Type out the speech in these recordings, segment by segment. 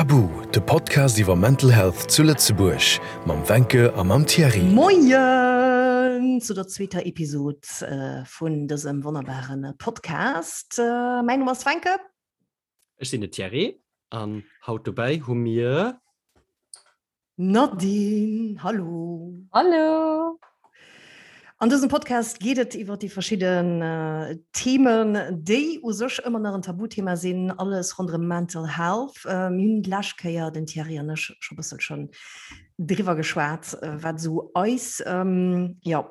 Tabu, de Podcast iwwer Mental Health zu Lëtzebuerg mam Wencke a mam Thierry. Moien zu der zweeter Episod vun dësem wonnerbare Podcast. Mäin Numm ass Wencke. Ech sinn de Thierry an haut dobäi hu mir. Nadine, hallo! Hallo! An dësem Podcast geet et iwwer déi verschidden Themen, déi u sech ëmmer nach en Tabuthema sinn, alles ronderëm Mental Health. Mir hunn d'lescht Kéier, den Thierry an ech, scho bësselchen driwwer geschwat, wat esou eis, jo,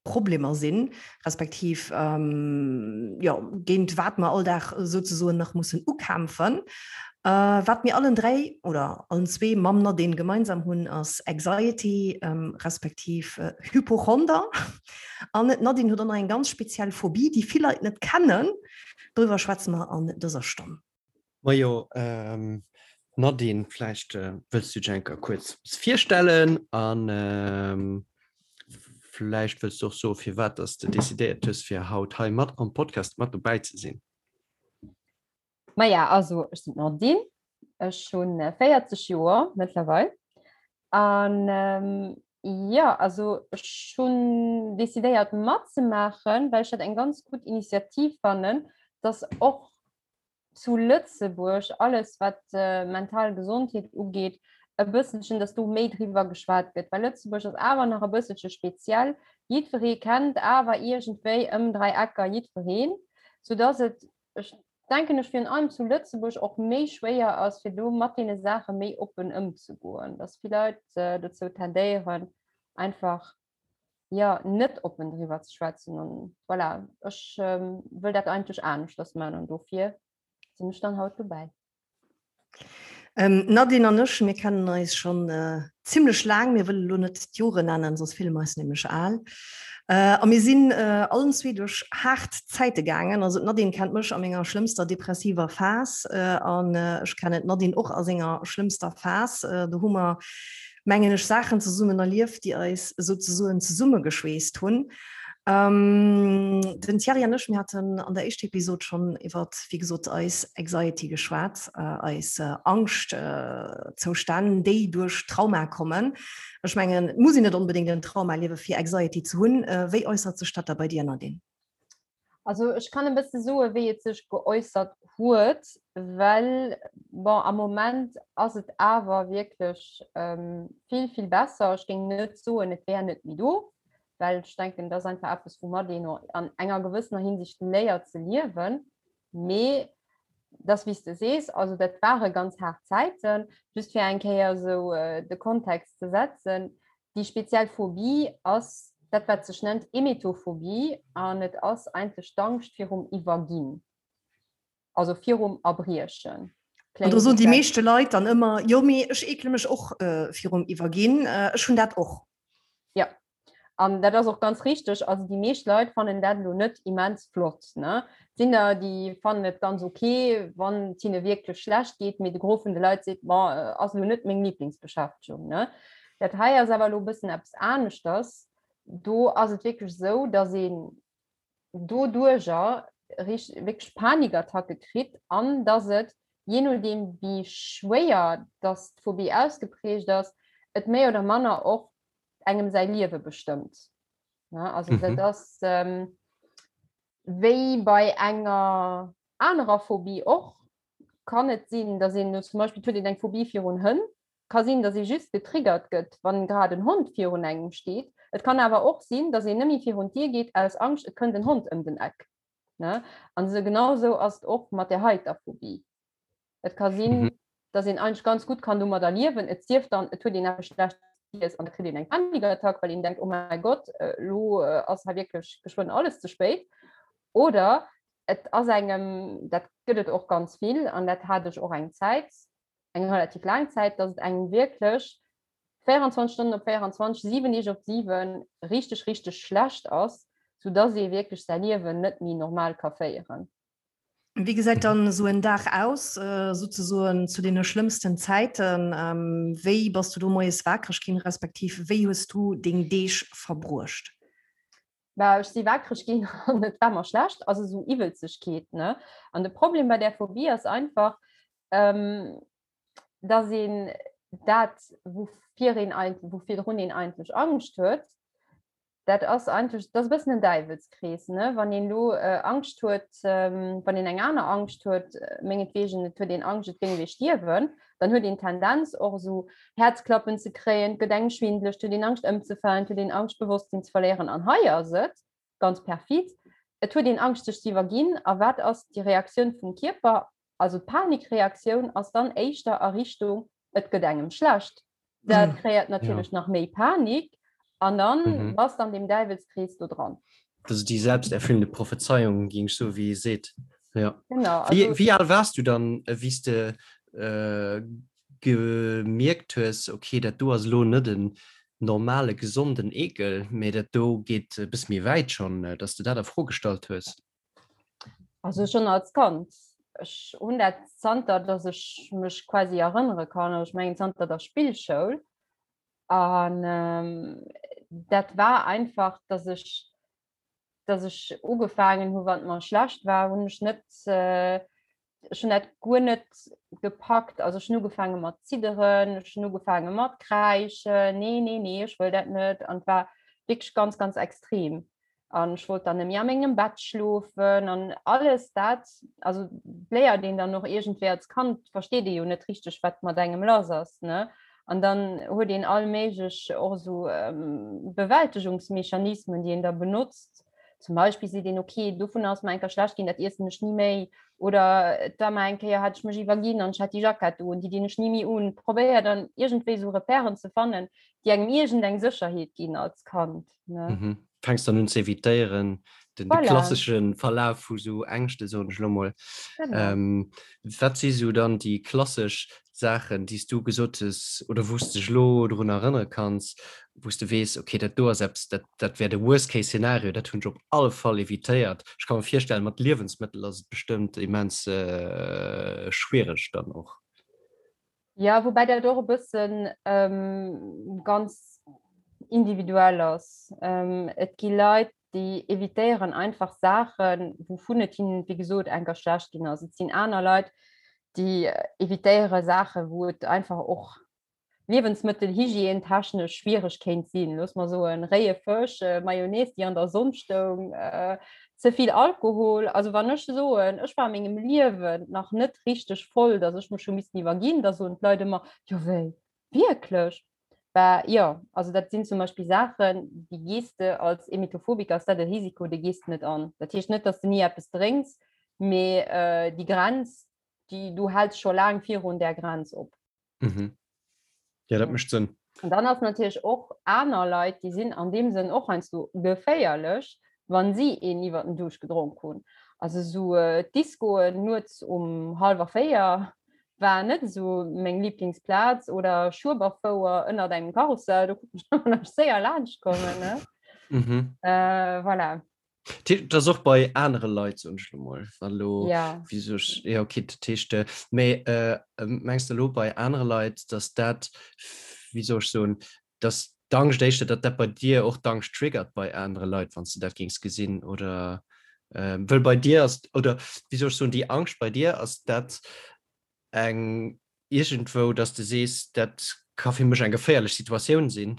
Problemer sinn, respektiv jo, géint wat mer all Dag souzesoen nach mussen ukämpfen. Wat mir allen dräi oder allen zwee mam Nadine gemeinsam hunn, ass Anxiety respektiv Hypochonder. An d'Nadine huet och nach eng ganz speziell Phobie, déi vill Leit net kennen. Doriwwer schwätze mer an dëser Stonn. Majo, Nadine, vläicht wëlls du dech eng Kéier kuerz virstellen an vläicht wëlls du och soen, firwat dass de decidéiert hues, fir haut hei mat am Podcast mat dobäi ze sinn. Maja, also ech sinn d'Nadine, ech hunn 40 Joer mëttlerweil an jo, also ech hunn decidéiert matzemaachen, well ech dat eng ganz gutt Initiativ fannen, dass och zu Lëtzebuerg alles wat mental Gesondheet ugeet e bësselchen, dass do méi driwwer geschwat gëtt, well Lëtzebuerg ass awer nach e bësselche speziell. Jiddweree kennt awer iergendwéi ëm 3 Ecker jiddwereen, soudass et, ech denken ech, virun allem zu Lëtzebuerg och méi schwéier ass, fir do mat deene Saache méi oppen ëmzegoen, dass vill Leit dozou tendéieren, einfach jo net oppen driwwer ze schwätzen an voilà, ech wëll dat eigentlech aneschters man an dofir sinn ech dann haut dobäi. Ähm, Nadine an ech, mir kennen eis schon äh, zimmlech laang, mir wëlle lo net d'Jore nennen, soss fille mer eis nämlech al. Äh, a mir sinn äh, allen zwee duerch haart Zäite gaangen. Also d'Nadine kennt mech a menger schlëmmster depressiver Phas äh, an äh, ech kennen d'Nadine och a senger schlëmmster Phas. Äh, do hu mer mengen ech, Saachen zesummen erlieft, déi eis souzesoen zesummegeschweesst hunn. Den Thierry an ech, mir haten an der éischter Episod schonn iwwer, wéi gesot, eis Anxiety geschwat, eis Angschtzoustänn, déi duerch Trauma kommen. Ech mengen, et muss een net onbedéngt en Trauma erliewen, fir Anxiety ze hunn. Wéi äussert sech dat da bei dir, Nadine? Also ech kann e bësse soe wéi et sech geäussert huet, well bon am Moment ass et awer wierklech vill, vill besser. Ech géing net soen, et wär net méi do, well ech denken, et ass einfach eppes, woumat een an enger gewëssener Hinsicht léiert ze liewen. Mee dass wéi s de sees, also dat ware ganz haart Zäiten. Just fir eng Kéier esou de Kontext ze setzen, Déi speziell Phobie ass dat, wat sech nennt Emetophobie an et ass eigentlech d'Angscht virum Iwwerginn, also virum Erbriechen. An do soen déi meeschte Leit dann ëmmer, jo mee ech eekele mech och virum Iwwerginn, ech hunn dat och. Jo, an dat ass och ganz richteg. Also déi meescht Leit fannen dat elo net immens flott. Ne? Et sinn der, déi fannen et ganz ok, wann et hinne wierklech schlecht geet, mee de Gros vun de Leit seet, bon, ass elo net meng Liblingsbeschäftegung. Ne? Dat hei ass awer elo e bëssen eppes aneschters. Do ass et wierklech esou, datt een doduerjer wierklech Panikattacke kritt an datt et, jee nodeem wéi schwéier datt d'Phobie ausgeprägt ass, et méi oder manner och engem säi Liewe bestëmmt. Also dat ass wéi bei enger anerer Phobie och, kann et sinn, datt een zum Beispill, et huet een eng Phobie virun Hënn, Ka sinn, dass ee just getriggert gëtt, wann grad en Hond virun engem steet. Et kann awer och sinn, dass een nëmme virun d'Dier geet aus Angscht, et kënnt en Hond ëm den Eck. Ne? An esou genau esou ass et och mat där heiter Phobie. Et ka sinn, dass een eigentlech ganz gutt kann domadder liewen, et sief dann, et huet een eppes Schlechtes giess an da kritt een eng Panikattack, well een denkt, oh mäi Gott, elo ass hei wierklech geschwënn alles ze spéit. Oder et ass engem, dat gëtt et och ganz vill an dat hat ech och eng Zäit, eng relativ laang Zäit, dass et engem wierklech 24 Stonnen op 24, 7 Deeg op 7 richteg, richteg schlecht ass, soudass ee wierklech säi Liewen net méi normal ka féieren. Wéi gesäit dann esou en Dag aus, souzesoen zu deene schlëmmsten Zäiten? Wéi bass du do moies wakereg ginn, respektiv wéi hues du deng Deeg verbruecht? Bah, ech si wakereg ginn an et war mer schlecht, also esou Iwwelzegkeet, ne? An de Problem bei där Phobie ass einfach, ähm, Dass een dat, woufir een eigentlech, wou virdrun een eigentlech Angscht huet, dat ass eigentlech, dat ass e bëssen en Däiwelskrees, ne? Wann een elo Angscht huet, wann een eng aner Angscht huet, mengetwegen, et huet een Angscht, et géing wee stierwen, dann huet een d'Tendenz och esou Häerzklappen ze kréien, et gëtt engem schwindeleg, et huet een Angscht ëmzefalen, et huet een Angscht d'Bewosstsinn ze verléieren. An hei ass et ganz perfid, et huet een Angscht sech ze iwwerginn. A wat ass déi Reaktioun vum Kierper? Also d'Panikreaktioun ass dann éischter a Richtung, et gëtt engem schlecht. Dat mm. kreéiert natierlech ja. nach méi Panik an dann mhm. bass an dem Däiwelskrees do dran. Das ist die selbsterfüllende Prophezeiung ging so wie seet. Ja. Genau, also, wie, wie al warst du dann äh, wie du äh, gemierkt hues okay dat do ass lo net den normale gesonden Ekel, mee dat do geet e bësse méi wäit schon, äh, dass du dat a Fro gestallt hues? Also schon als Kand. Ech hunn dat zanter, dass ech mech quasi erënnere kann, also ech mengen zanter der Spillschoul. An ähm, dat war einfach, dass ech, dass ech ugefaangen hu wann et mer schlecht war, hunn ech net äh, ech hunn dat guer net gepackt. Also ech hunn ugefaange mat zidderen, ech hunn ugefaange mat kräischen, nee, nee, nee, ech wëll dat net. An et war wierklech ganz, ganz extrem. An ech wollt dann nëmme a mengem Bett schlofen an alles dat. Also léiert een dann och iergendwéi als Kand, versteet ee jo net richteg, wat mat engem lass ass, ne? An dann huet een all méiglech och esou Bewältegungsmechanismen, déi een da benotzt. Zum Beispill seet een, okay, dovunner ass mer eng Kéier schlecht ginn, dat iessen ech ni méi. Oder et war mer eng Kéier, hat ech mech iwwerginn an ech hat déi Jackett un, déi dinn ech ni méi un. Probéiert dann iergendwéi esou Repèren ze fannen, déi engem iergendeng Sécherheet ginn als Kand, ne? Mhm. Fänks dann un ze evitéieren, den, de klassesche Verlaf vu sou Ängschte, soen ech elo mol. Genau. Ähm, wat si sou dann déi klassesch Saachen, déi s du gesot hues oder wou s de dech elo drun erënnere kanns, wou s de weess, okay, dat do ass eppes, dat, dat wär de Worst-Case-Szenario, dat hunn ech op alle Fall evitéiert. Ech ka mer virstellen, mat Liewensmëttel ass et bestëmmt immens schwiereg dann och. Jo, woubäi dat och e bëssen ganz individuell ass. Et gi Leit, déi evitéieren einfach Saachen, wouvun et hinnen, wéi gesot, enker schlecht ginn ass. Et sinn aner Leit, déi evitéiere Saachen, wou et einfach och liewensmëttelhygiène-technesch schwiereg kéint sinn. Looss mer soen, réie Fësch, Mayonnaise, déi an der Sonn stoung, ze vill Alkohol. Also wann ech soen, ech war a mengem Liewen nach net richteg voll, datt ech mech hu missten iwwerginn, da soen d'Leit ëmmer, Jo wéi, wierklech? Bah jo, also dat sinn zum Beispill Saachen, déi gees de als Emetophobiker, ass dat e Risiko, dee gees de net an. Dat heescht net, datt s de ni eppes drénks, mee déi Grenz, déi, du häls scho laang virun där Grenz op. Mhm. Ja, dat mécht Sënn. An dann ass natierlech och aner Leit, déi sinn an deem Sënn och heiansdo geféierlech, wa si een iwwer den Duuscht gedronk hunn. Also esou Discoen nuets um hallwer 4 war net esou meng Lieblingsplaz oder Schueberfouer ënnert engem Karussell, do konnt ech ëmmer nach séier laanscht kommen, ne? Mhm. Äh, voilà. Dat ass och bei anere Leit, soen ech lo mol, wa lo, Ja. wéi soll ech, ja okay, dat heescht, mee mengs de lo bei anere Leit, datt dat, wéi soll ech soen, datt d'Angscht éischter, datt dat bei dir och d'Angscht triggert bei anere Leit, wann s de dat géings gesinn oder wëll bei dir ass, oder wéi soll ech soen, déi Angscht bei dir, ass dat eng iergendwou, datt s de sees, dat ka fir mech eng geféierlech Situatioun sinn?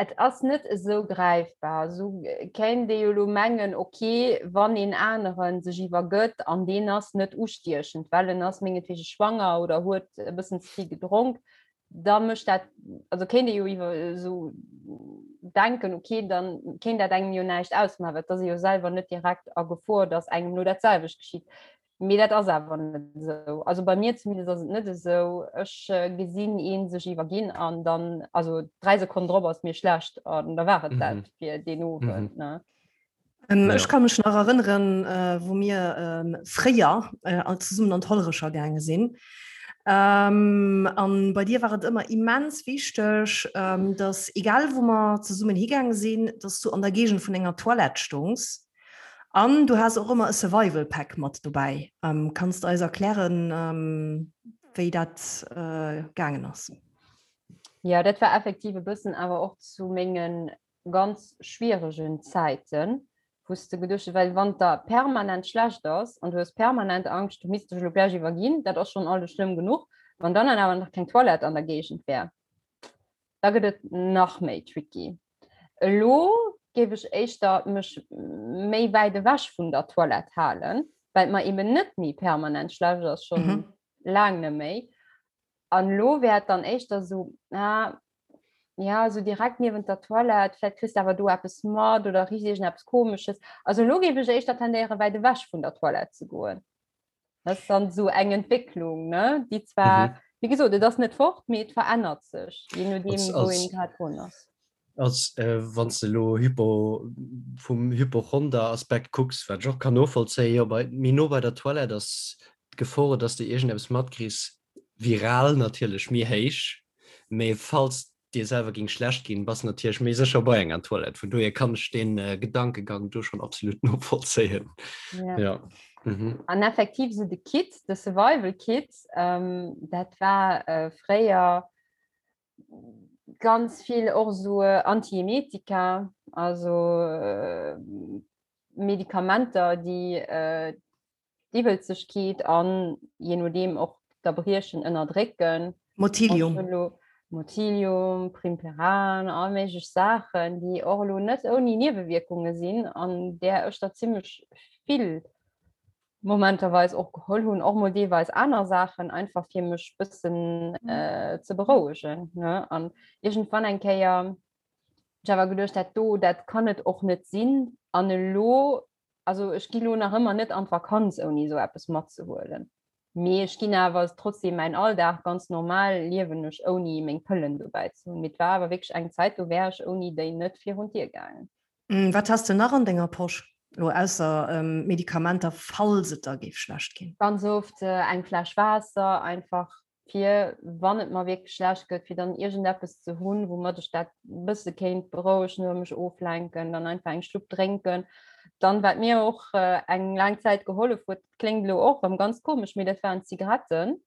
Et ass net esou gräifbar. Esou kéint ee jo elo mengen, ok, wann een anere sech iwwergëtt an deen ass net ustiechend, well en ass mengetwege schwanger oder huet e bëssen ze vill gedronk, da mécht dat, also kéint ee jo iwwer esou denken, ok, da kéint dat engem jo näischt ausmaachen, well et ass ee jo selwer net direkt a Gefor, datt engem elo dat selwecht geschitt. Mee dat ass awer net esou. Also bei mir zumindest ass et net esou. Ech gesinn ee sech iwwerginn an dann, also 3 Sekonnen drop ass mir schlecht an da war et dat fir deen Owend. Ne? Ech ka mech nach erënneren, wou mir fréier all zesummen an d'Hollerecher gaange sinn. An bei dir war et ëmmer immens wichteg, dass egal wou mer zesummen higaange sinn, dass du an der Géigend vun enger Toilette stongs. An du has och ëmmer e Survival Pack mat dobäi. Kanns de eis erklären, wéi dat gaangen ass? Jo, dat war effektiv e bëssen awer och zu mengen ganz schwieregen Zäiten, wou s de geduecht hues, well wann et der permanent schlecht ass an du hues permanent Angscht, du misst dech elo gläich iwwerginn, dat ass schonn alles schlëmm genuch. Wann dann awer nach keng Toilette an der Géigend wär, da gëtt et nach méi tricky. Elo géif ech éischter mech méi wäit ewech vun der Toilette halen, well et mer eben net méi permanent schlecht ass, schonn mhm. laang net méi. An elo wär et dann éischter sou, ah, ja, sou direkt niewent der Toilette, vläicht kriss de awer do eppes mat oder richt iergendeppes Komesches. Also elo géif ech éischter tendéieren, wäit ewech vun der Toilette ze goen. Dat ass dann sou eng Entwécklung, ne, déi zwar, mhm. wéi gesot, et ass net fort, mee et verännert sech, je nodeem, wou een grad drun ass. Als äh, wann s de elo Hypo, vum Hypochonder-Aspekt kucks, wat ech och kann novollzéien, jo, bei, méi no bei der Toilette ass d'Gefor, dass de iergendeppes matkriss, viral natierlech méi héich, mee falls dir selwer géing schlecht ginn, bass natierlech méi sécher bei enger Toilette. Vun dohier kann ech dee Gedankegang do schonn absolut novollzéien. Ja. Ja. Mhm. An effektiv sou de Kit, de Survival Kit, ähm, dat war äh, fréier ganz vill och sou Antiemetika, also äh, Medikamenter, déi äh, d'Iwwelzegkeet an je nodeem och d'Erbriechen ënnerdrécken. Motilium. Motilium, Primperan, all méiglech Saachen, déi och elo net ouni Niewewierkunge sinn an där ech der zimmlech vill momenterweis och geholl hunn, och mol deelweis aner Saachen, einfach fir mech bëssen ze berouegen, ne. An iergendwann eng Kéier hunn ech awer geduecht, dat do, dat kann et och net sinn. An elo Also ech gi lo nach ëmmer net an d'Vakanz ouni esou eppes matzehuelen. Mee ech ginn awer trotzdem mäin Alldag ganz normal liewen ech ouni meng Pëllen dobäi ze hunn. Mee et war awer wierklech eng Zäit, do wär ech ouni déi net virun d'Dier gaangen. Wat has de nach an denger Posch, elo ausser Medikamenter, falls et der géif schlecht ginn? Ganz oft eng Fläsch Waasser, einfach fir wann et mer wierklech schlecht gëtt, fir dann iergendeppes ze hunn, woumat ech dat e bësse kéint berouegen oder mech oflenken, dann einfach eng Schlupp drénken. Dann, wat mir och eng laang Zäit gehollef huet, dat kléngt elo och erëm ganz komesch, mee dat waren d'Zigaretten,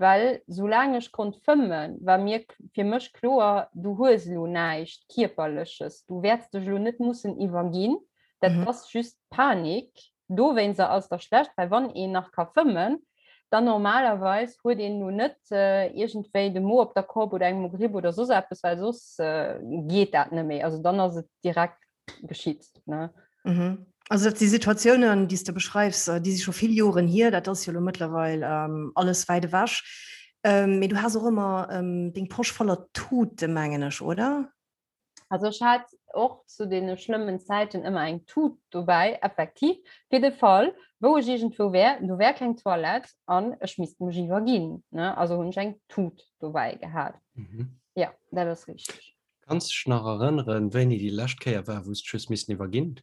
well soulaang ech konnt fëmmen, war mir fir mech kloer, du hues elo näischt Kierperleches, du wäerts dech elo net mussen iwwerginn, dat ass just Panik. Dowéinster ass der schlecht, well wann een nach ka fëmmen, dann normalerweis huet een lo net iergendwéi de Mo op der Kopp oder eng Mogripp oder soss eppes, well soss geet dat net méi. Also dann ass et direkt geschitt, ne? Mhm. Also dat si Situatiounen, déi s de beschreifs, déi si scho vill Joren hier. Dat ass jo elo mëttlerweil alles wäit ewech. Mee du has och ëmmer deng Posch voller Tute, mengen ech, oder? Also ech hat och zu deene schlëmmen Zäiten ëmmer eng Tut dobäi, effektiv, fir de Fall, wou ech iergendwou wär, do wär keng Toilette an ech misst mech iwwerginn, ne? Also hunn ech eng Tut dobäi gehat. Mhm. Ja, dat ass richteg. Kanns dech nach erënneren, wéini déi lescht Kéier war, wou s dech hues missen iwwerginn?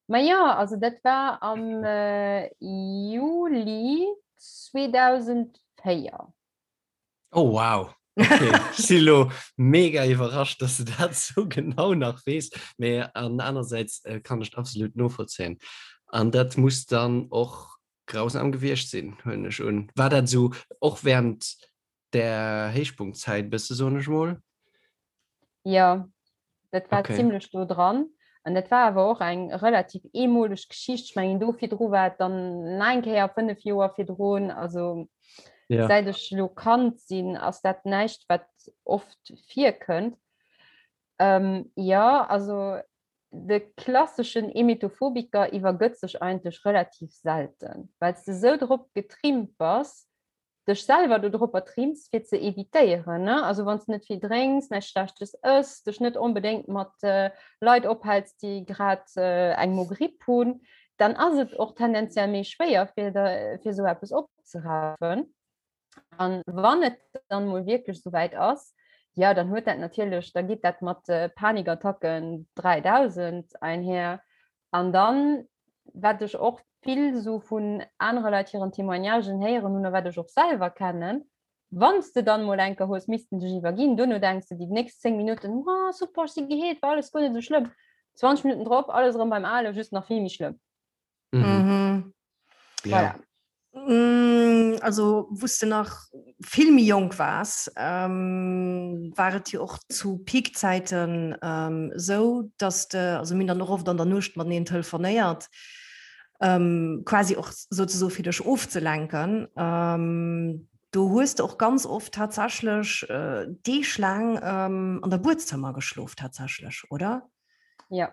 Ma jo, also dat war am Juli 2004. Oh wow, okay. Ech si lo mega iwwerrascht, dass du dat sou genau nach weess. Mee an anersäits äh, kann ech absolut novollzéien. An dat muss dann och grausam gewiescht sinn, huelen ech un. War dat sou och während der Héichpunktzäit bësse soen ech mol? Jo, dat war okay. zimmlech do dran. An dat war awer och eng relativ eemoleg Geschicht. Ech mengen do virdru war et dann nach eng Kéier 5 Joer virdrun. Also ja. säit ech lo Kand sinn, ass dat näischt, wat oft virkënnt. Ähm, ja, also de klasseschen Emetophobiker iwwergëtt sech eigentlech relativ selten, well s de sou drop getrimmt bass, dech selwer do dropper trimms fir ze evitéieren, ne? Also wann s de net vill drénks, näischt Schlechtes ëss, dech net onbedéngt mat Leit ophäls, déi grad eng Mogripp hunn, dann ass et och tendenziell méi schwéier fir der fir esou eppes opzerafen. An wann et dann mol wierklech esou wäit ass, jo dann huet dat natierlech, da geet dat mat Panikattacken 3000 einher. An dann, wat ech och vill esou vun anere Leit hiren Témoignagen héieren hunn a wat ech och selwer kennen, wann s de dann emol eng Kéier hues missten dech iwwerginn, duerno denks de déi nächst 10 Minutten, oh super, ech si geheelt, war alles guer net esou schlëmm. 20 Minutten drop, alles erëm beim Alen, just nach vill méi schlëmm. Mhm. Ja. Voilà. Mm, also wou s de nach vill méi jonk waars, ähm, war et jo och zu Peakzäiten ähm, sou, dass de, also mir hunn dann och oft an der Nuecht mateneen telefonéiert, ähm, quasi och souzesoe fir dech ofzelenken. Ähm. Do hues de och ganz oft tatsächlech Deeg laang an der Buedzëmmer geschlof tatsächlech, oder? Jo.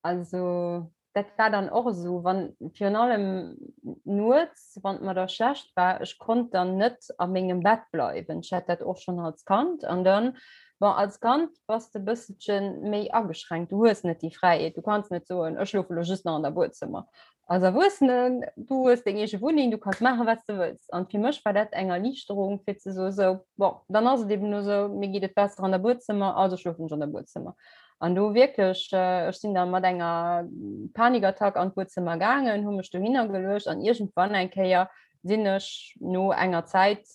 Also dat war dann och esou, wann virun allem nuets, wann et mer da schlecht war, ech konnt dann net a mengem Bett bleiwen. Ech hat dat och schonn als Kand an dann, bon, als Kand bass de e bësselche méi ageschränkt, du hues net déi Fräiheet, du kanns net soen, ech schlofe lo just nach an der Buedzëmmer. Als Erwuessenen, du hues deng eege Wunneng, du kanns maachen, wat s de wëlls. An fir mech war dat eng Erliichterung, fir ze soen, sou, bon, dann ass et eben elo sou, mir geet et besser an der Buedzëmmer, also schlofen ech an der Buedzëmmer. An do wierklech, ech sinn da mat enger Panikattack an d'Buedzëmmer gaangen, hu mech dohinner geluecht an iergendwann eng Kéier sinn ech no enger Zäit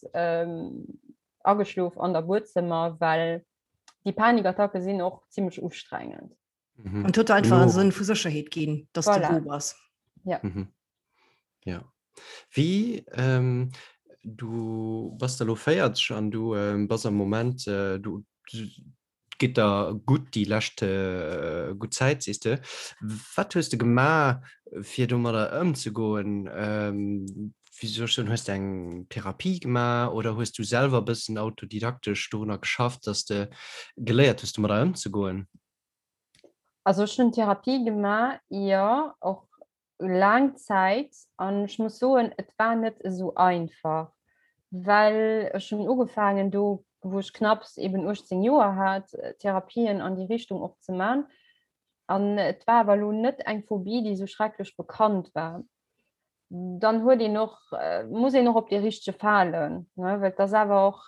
ageschlof an der Buedzëmmer, well déi Panikattacke sinn och zimmlech ustrengend. Mhm. An huet einfach en Sënn vu Sécherheet ginn, dass voilà. du do bass. Ja. Mhm. Ja. Wie ähm, du bass der lo 40 an du ähm, bass am Moment äh, du, du geht der gut die lescht äh, gut Zäit siehst du. Wat hues du gemaach fir domadder ëmzegoen? Ähm, wéi soll ech soen, hues de eng Therapie gemaach oder hues du selwer e bëssen autodidaktesch dorunner geschafft, dass de geléiert hues domadder ëmzegoen? Also ech hunn Therapie gemaach, jo, och laang Zäit an ech muss soen, et war net esou einfach, well ech hunn ugefaangen do, wou ech knapps eben 18 Joer hat, Therapien an déi Richtung och ze man. An et war awer elo net eng Phobie, déi esou schrecklech bekannt war. Dann huet een och, muss een och op dee richtege falen, ne, well et ass awer och,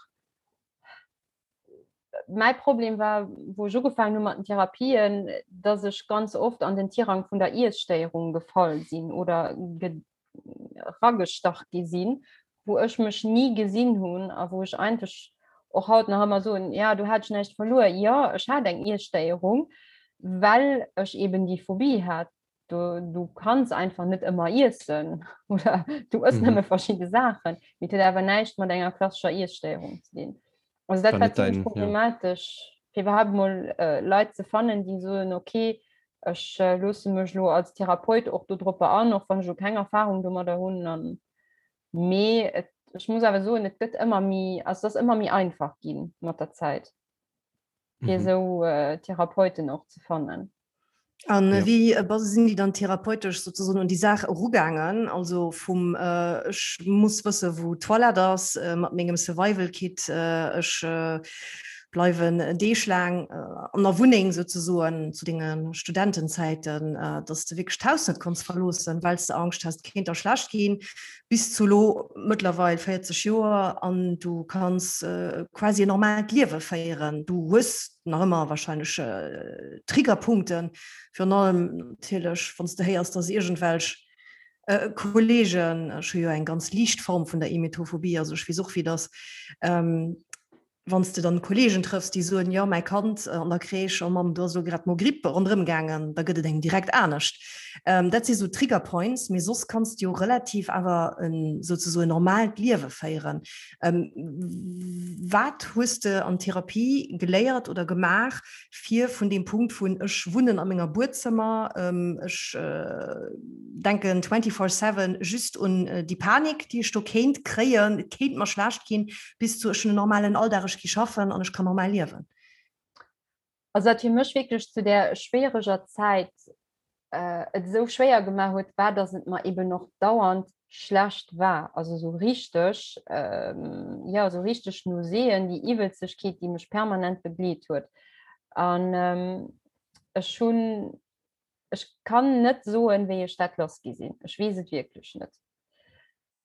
mäi Problem war, wou ech ugefaangen hu mat den Therapien, dass ech ganz oft an den Tirang vun der Iesstéierung gefall sinn oder ragestach gi sinn, wou ech mech ni gesinn hunn a wou ech eigentlech och haut nach ëmmer soen, ja, du hat ech näischt verluer. Jo, ech hat eng Iesstéierung, well ech eben déi Phobie hat. Du, du kanns einfach net ëmmer iessen oder du ëss mhm. nëmme verschiedene Saachen. Mee et huet awer näischt mat enger klassescher Iesstéierung ze dinn. Also dat war ziemlich problematisch, ja. fir überhaupt mol äh, Leit ze fannen, déi soen, okay, ech äh, loosse mech lo als Therapeut och do drop an, och wann ech lo keng Erfahrung domadder hunn. An mee et, ech muss awer soen, et gëtt ëmmer méi, also et ass ëmmer méi einfach ginn mat der Zäit, fir mhm. esou äh, Therapeuten och ze fannen. An ja. wéi äh, sinn déi dann therapeutesch sozusagen un déi Saach erugaangen? Also vum äh, ech muss wësse wou d'Toilette ass äh, mat mengem Survival Kit, äh, ech äh, bleiwen Deeg laang äh, an der Wunneng sozusagen zu denge Studentenzäiten, äh, dass du wierklech d'Haus net konns verloossen, well s de Angscht hast, kéint der schlecht ginn, bis zu lo mëttlerweil 40 Joer an du kanns äh, quasi en normaalt Liewe féieren. Du hues nach ëmmer wahrscheinlech äh, Triggerpunkten, virun allem natierlech, wann s de héiers, dass iergendwelch äh, Kollegen, ech hu jo eng ganz liicht Form vun der Emetophobie, also ech weess och, wéi dat ass, ähm, wann s de dann Kollegen trëffs, déi soen, jo mäi Kand an der Crèche, oh Mamm, do ass elo grad d'Mogripp ronderëm gaangen, da gëtt et engem direkt anescht. Ähm, dat si sou Trigger Points, mee soss kanns de jo relativ awer en souzesoen normaalt Liewe féieren. Ähm, wat hues de an Therapie geléiert oder gemaach, fir vun deem Punkt vun ech wunnen a menger Buedzëmmer, ähm, ech äh, denken 24/7 just un äh, déi Panik, déi ech do kéint kréien, et kéint mer schlecht ginn, bis zu ech hunn en normalen Alldag, ech gi schaffen an ech kann normal liewen? Also wat fir mech wierklech zu där schwiereger Zäit et esou schwéier gemaach huet, war, datt et mer eben och dauernd schlecht war. Also esou richteg, jo, esou richteg Nauséeën, déi Iwwelzegkeet, déi mech permanent begleet huet. An ech hunn, ech kann net soen, wéi ech dat lass gi sinn. Ech weess et wierklech net.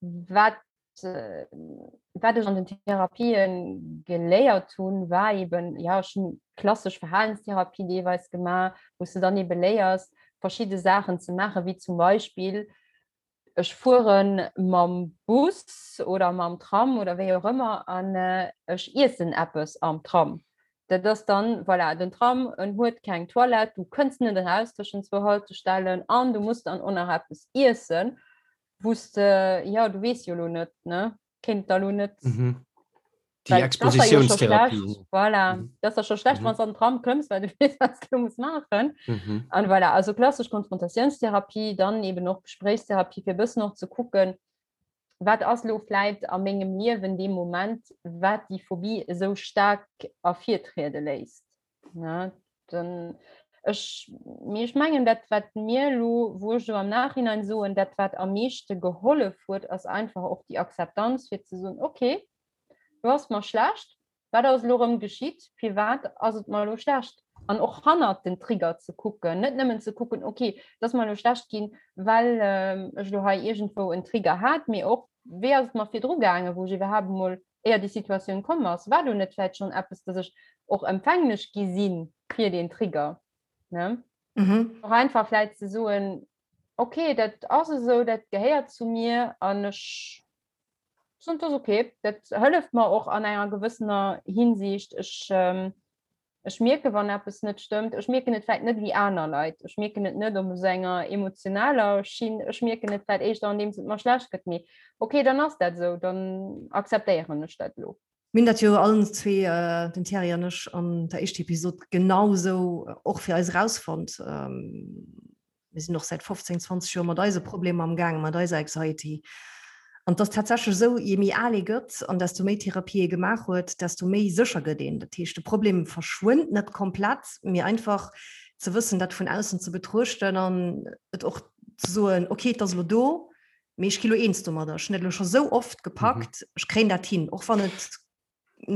Wat wat ech an den Therapien geléiert hunn, war eben, ja, ech hunn klassesch Verhalenstherapie deelweis gemaach, wou s de dann ebe léiers, verschidde Saachen ze maachen, wéi zum Beispill, ech fuere mam Bus oder mam Tram oder wéi och ëmmer an ech iessen eppes am Tram. Dat ass dann, voilà, den Tram, en huet keng Toilette, du kënns net eraus tëschent zwou Haltestellen an du muss dann och nach eppes iessen. wous de, ja, du weess jo elo net, ne? Kéint da lo net. Mhm. Déi Expositionstherapie. Voilà, mhm. dat ass scho schlecht, mhm. wann an den Tram këmms, well du weess, wat du muss maachen. Mhm. An voilà, also klassesch Konfrontatiounstherapie, dann eben och Gespréichstherapie, fir e bëssen och ze kucken, Wat ass elo vläit a mengem Liewen dee Moment, wat déi Phobie esou staark ervirtriede léisst? Ne? Dann, ech, mee ech mengen, dat wat mir elo, wou ech elo am Nachhinein soen, dat wat am meeschte gehollef huet, ass einfach och déi Akzeptanz, fir ze soen, okay, lo ass mer schlecht, Wat ass elo erëm geschitt? Firwat ass et mer elo schlecht? An och hannert den Trigger ze kucken, net nëmmen ze kucken, okay, et ass mer elo schlecht ginn, well ech elo hei iergendwou en Trigger hat, mee och, wéi ass et mer virdru gaangen, wou ech iwwerhaapt emol éier déi Situatioun komm ass? War do net vläicht schonn eppes, dass ech och empfänglech gi si fir deen Trigger, ne? Och einfach vläicht ze soen, okay, dat ass esou, dat gehéiert zu mir an ech Soen, dat ass ok. Dat hëlleft mer och an enger gewëssener Hinsicht. Ech, ech mierke wann eppes net stëmmt. Ech mierken et vläicht net wéi aner Leit. Ech mierken et net op esou enger emotionaler Schinn. Ech mierken et vläicht éischter andeems et mer schlecht gëtt. Mee ok, dann ass dat esou, dann akzeptéieren ech dat elo. Mir hunn dat jo allen zwee, den Thierry an ech, an der éischter Episod genau esou och fir eis erausfonnt. Mir sinn och säit 15, 20 Joer mat eise Problemer am gaangen, mat eiser Anxiety. An et ass tatsächlech esou, je méi al ee gëtt an desto méi Therapie ee gemaach huet, desto méi sécher gëtt een. Dat heescht, de Problem verschwënnt net komplett, mee einfach ze wëssen, dat vun aussen ze betruechten an et och ze soen, okay, et ass elo do, mee ech gi lo eens domadder. Ech hunn dat elo scho sou oft gepackt, ech kréien dat hin, och wann et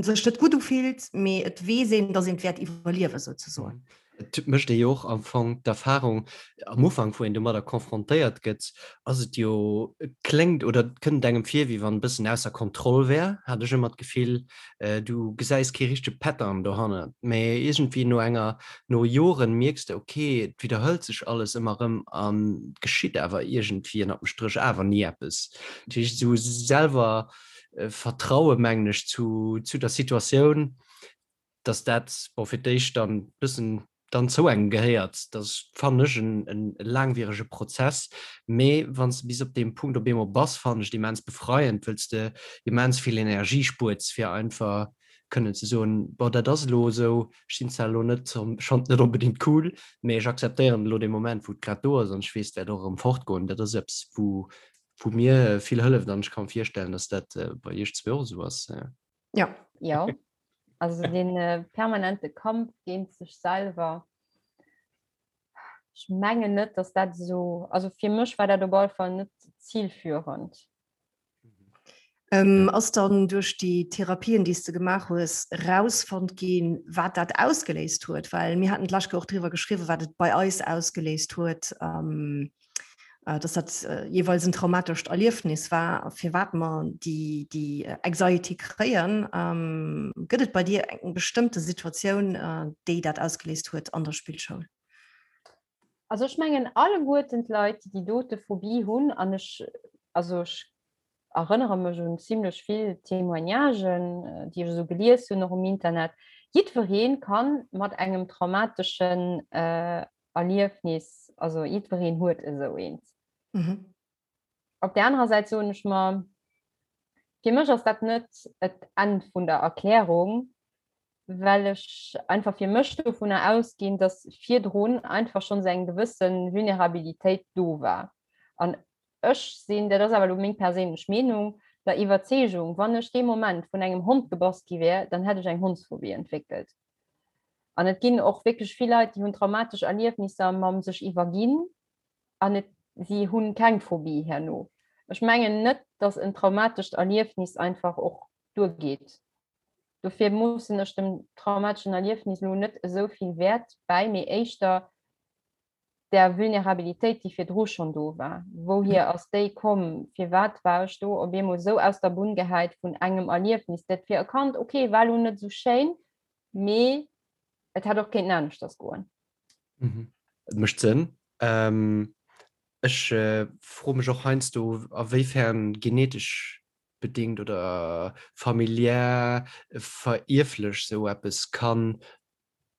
sech net gutt ufillt, mee et weess een, datt een et wäert iwwerliewen, souzesoen. Et mécht ee jo och am Fong d'Erfahrung, am Ufank, wou een domadder confrontéiert gëtt, ass et jo, et kléngt oder et kënnt engem vir, wéi wann e bëssen ausser Kontroll wär, hat ech ëmmer d'Gefill. Du gesäis kee richtege Pattern dohannert, mee iergendwéi no enger, no Joren mierks de, okay, et widderhëlt sech alles ëmmer erëm an et geschitt awer iergendwéi ënnert dem Stréch awer ni eppes. Dat heescht, esou selwer Vertraue mengen ech zu, zu der Situatioun, dass dat bon fir d'éischt dann bëssen dann zou engem gehéiert. Dat ass fannen ech en, en laangwierege Prozess, mee wann s de bis op deem Punkt op eemol bass, fannen ech et immens befreiend, wëll s de immens vill Energie spuerts fir einfach kënnen ze soen, bon dat ass elo esou, ech sinn zwar elo net, ech fannen et net onbedéngt cool, mee ech akzeptéieren elo dee Moment wou et grad do ass an ech weess et wäert och erëm fortgoen. Dat ass eppes wou wou mir vill hëlleft an ech ka mir virstellen, dass dat bei iech zwee och esou ass. Ja. Ja, also den äh, permanente Kampf géint sech selwer. Ech mengen net, dass dat esou, also fir mech war dat op alle Fall net zielführend. Ähm, ass dann duerch déi Therapien, déi s de gemaach hues, rausfonnt ginn, wat dat ausgeléist huet? Well mir haten d'lescht Kéier och driwwer geschriwwen, wat et bei eis ausgeléist huet. Ähm, äh, dass dat äh, jeweils en traumatescht Erliefnis war, firwat mer déi, déi äh, Anxiety kréien. Ähm, gëtt et bei dir eng bestëmmte Situatioun, äh, déi dat ausgeléist huet an der Spillschoul? Also ech mengen alleguerten d'Leit, déi déi dote Phobie hunn, an ech, also ech erënnere mech un zimlech vill Témoignagen, déi ech esou gelies hunn, och um Internet, jiddweree kann mat engem traumateschen äh, Erliefnis, also jiddwereen huet esou eent. Mhm. Op der anerer Säit soen ech mer, fir mech ass dat net et Enn vun der Erklärung, well ech einfach fir mech dovunner ausginn, dass virdrun einfach schonns eng gewësse Vulnerabilitéit do war. An ech sinn, dat ass awer elo meng perséinlech Meenung, der Iwwerzeegung, wann ech dee Moment vun engem Hond gebass gi wär, dann hätt ech eng Hondsphobie entwéckelt. An et ginn och wierklech vill Leit, déi hunn traumatesch Erliefnisser mam sech iwwerginn an et, si hunn keng Phobie herno. Ech mengen net, datt en traumatescht Erliefnis einfach och duergeet. Dofir moossen ech dem traumateschen Erliefnis elo net esou vill Wäert bäi, mee éischter der Vulnerabilitéit, déi virdru schonn do war. Wouhier ass déi komm? Firwat war ech do op eemol esou aus der Bunn gehäit vun engem Erliefnis, dat fir e Kand, okay, war elo net esou schéin, mee et hätt och kéinten aneschters goen. Et mécht Sënn. Ech froe mech och heiansdo, a wéifern genetesch bedéngt oder familiär verierflech esou eppes kann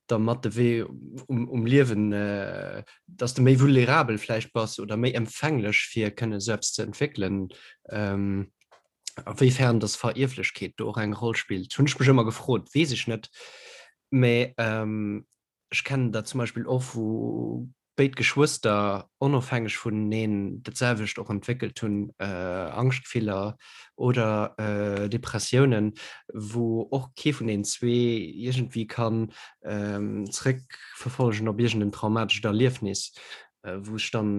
der mat de Wee um, um Liewen, äh, dass de méi vulnerabel vläicht bass oder méi empfänglech fir kënne sou eppes ze entwéckelen. Ähm, a wéifern dass Verierflechkeet do och eng Roll spillt, hunn ech mech ëmmer gefrot, weess ech net. Mä ähm, ech kennen dat zum Beispill och vu. béid Geschwëster onofhängeg vuneneen dat selwecht och entwéckelt hunn, Angschtgefiller oder Depressiounen, wou och kee vun deenen zwee iergendwéi kann zeréckverfollegen op iergend en traumatescht Erliefnis, wou ech dann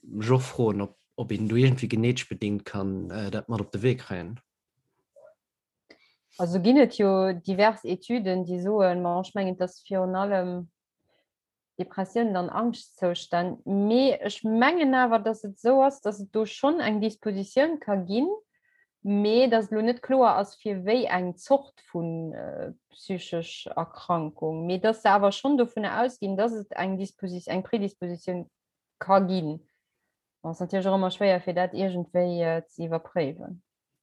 mech och froen, ob ob een do iergendwéi genetesch bedéngt kann dat mat op de Wee kréien. Also ginn et jo divers Etüden, déi soen, ma ech mengen, et ass virun allem Depressiounen an Angschtzoustänn, mee ech mengen awer, datt et esou ass, datt et do schonn eng Dispositioun ka ginn, mee datt et elo net kloer ass, fir wéi eng Zort vu psychesch Erkrankung, mee datt se awer schonn dovunner ausginn, datt et eng Disposi-, eng Predispositioun ka ginn. Bon, ass natierlech och ëmmer schwéier, fir dat iergendwéi ze iwwerpréiwen.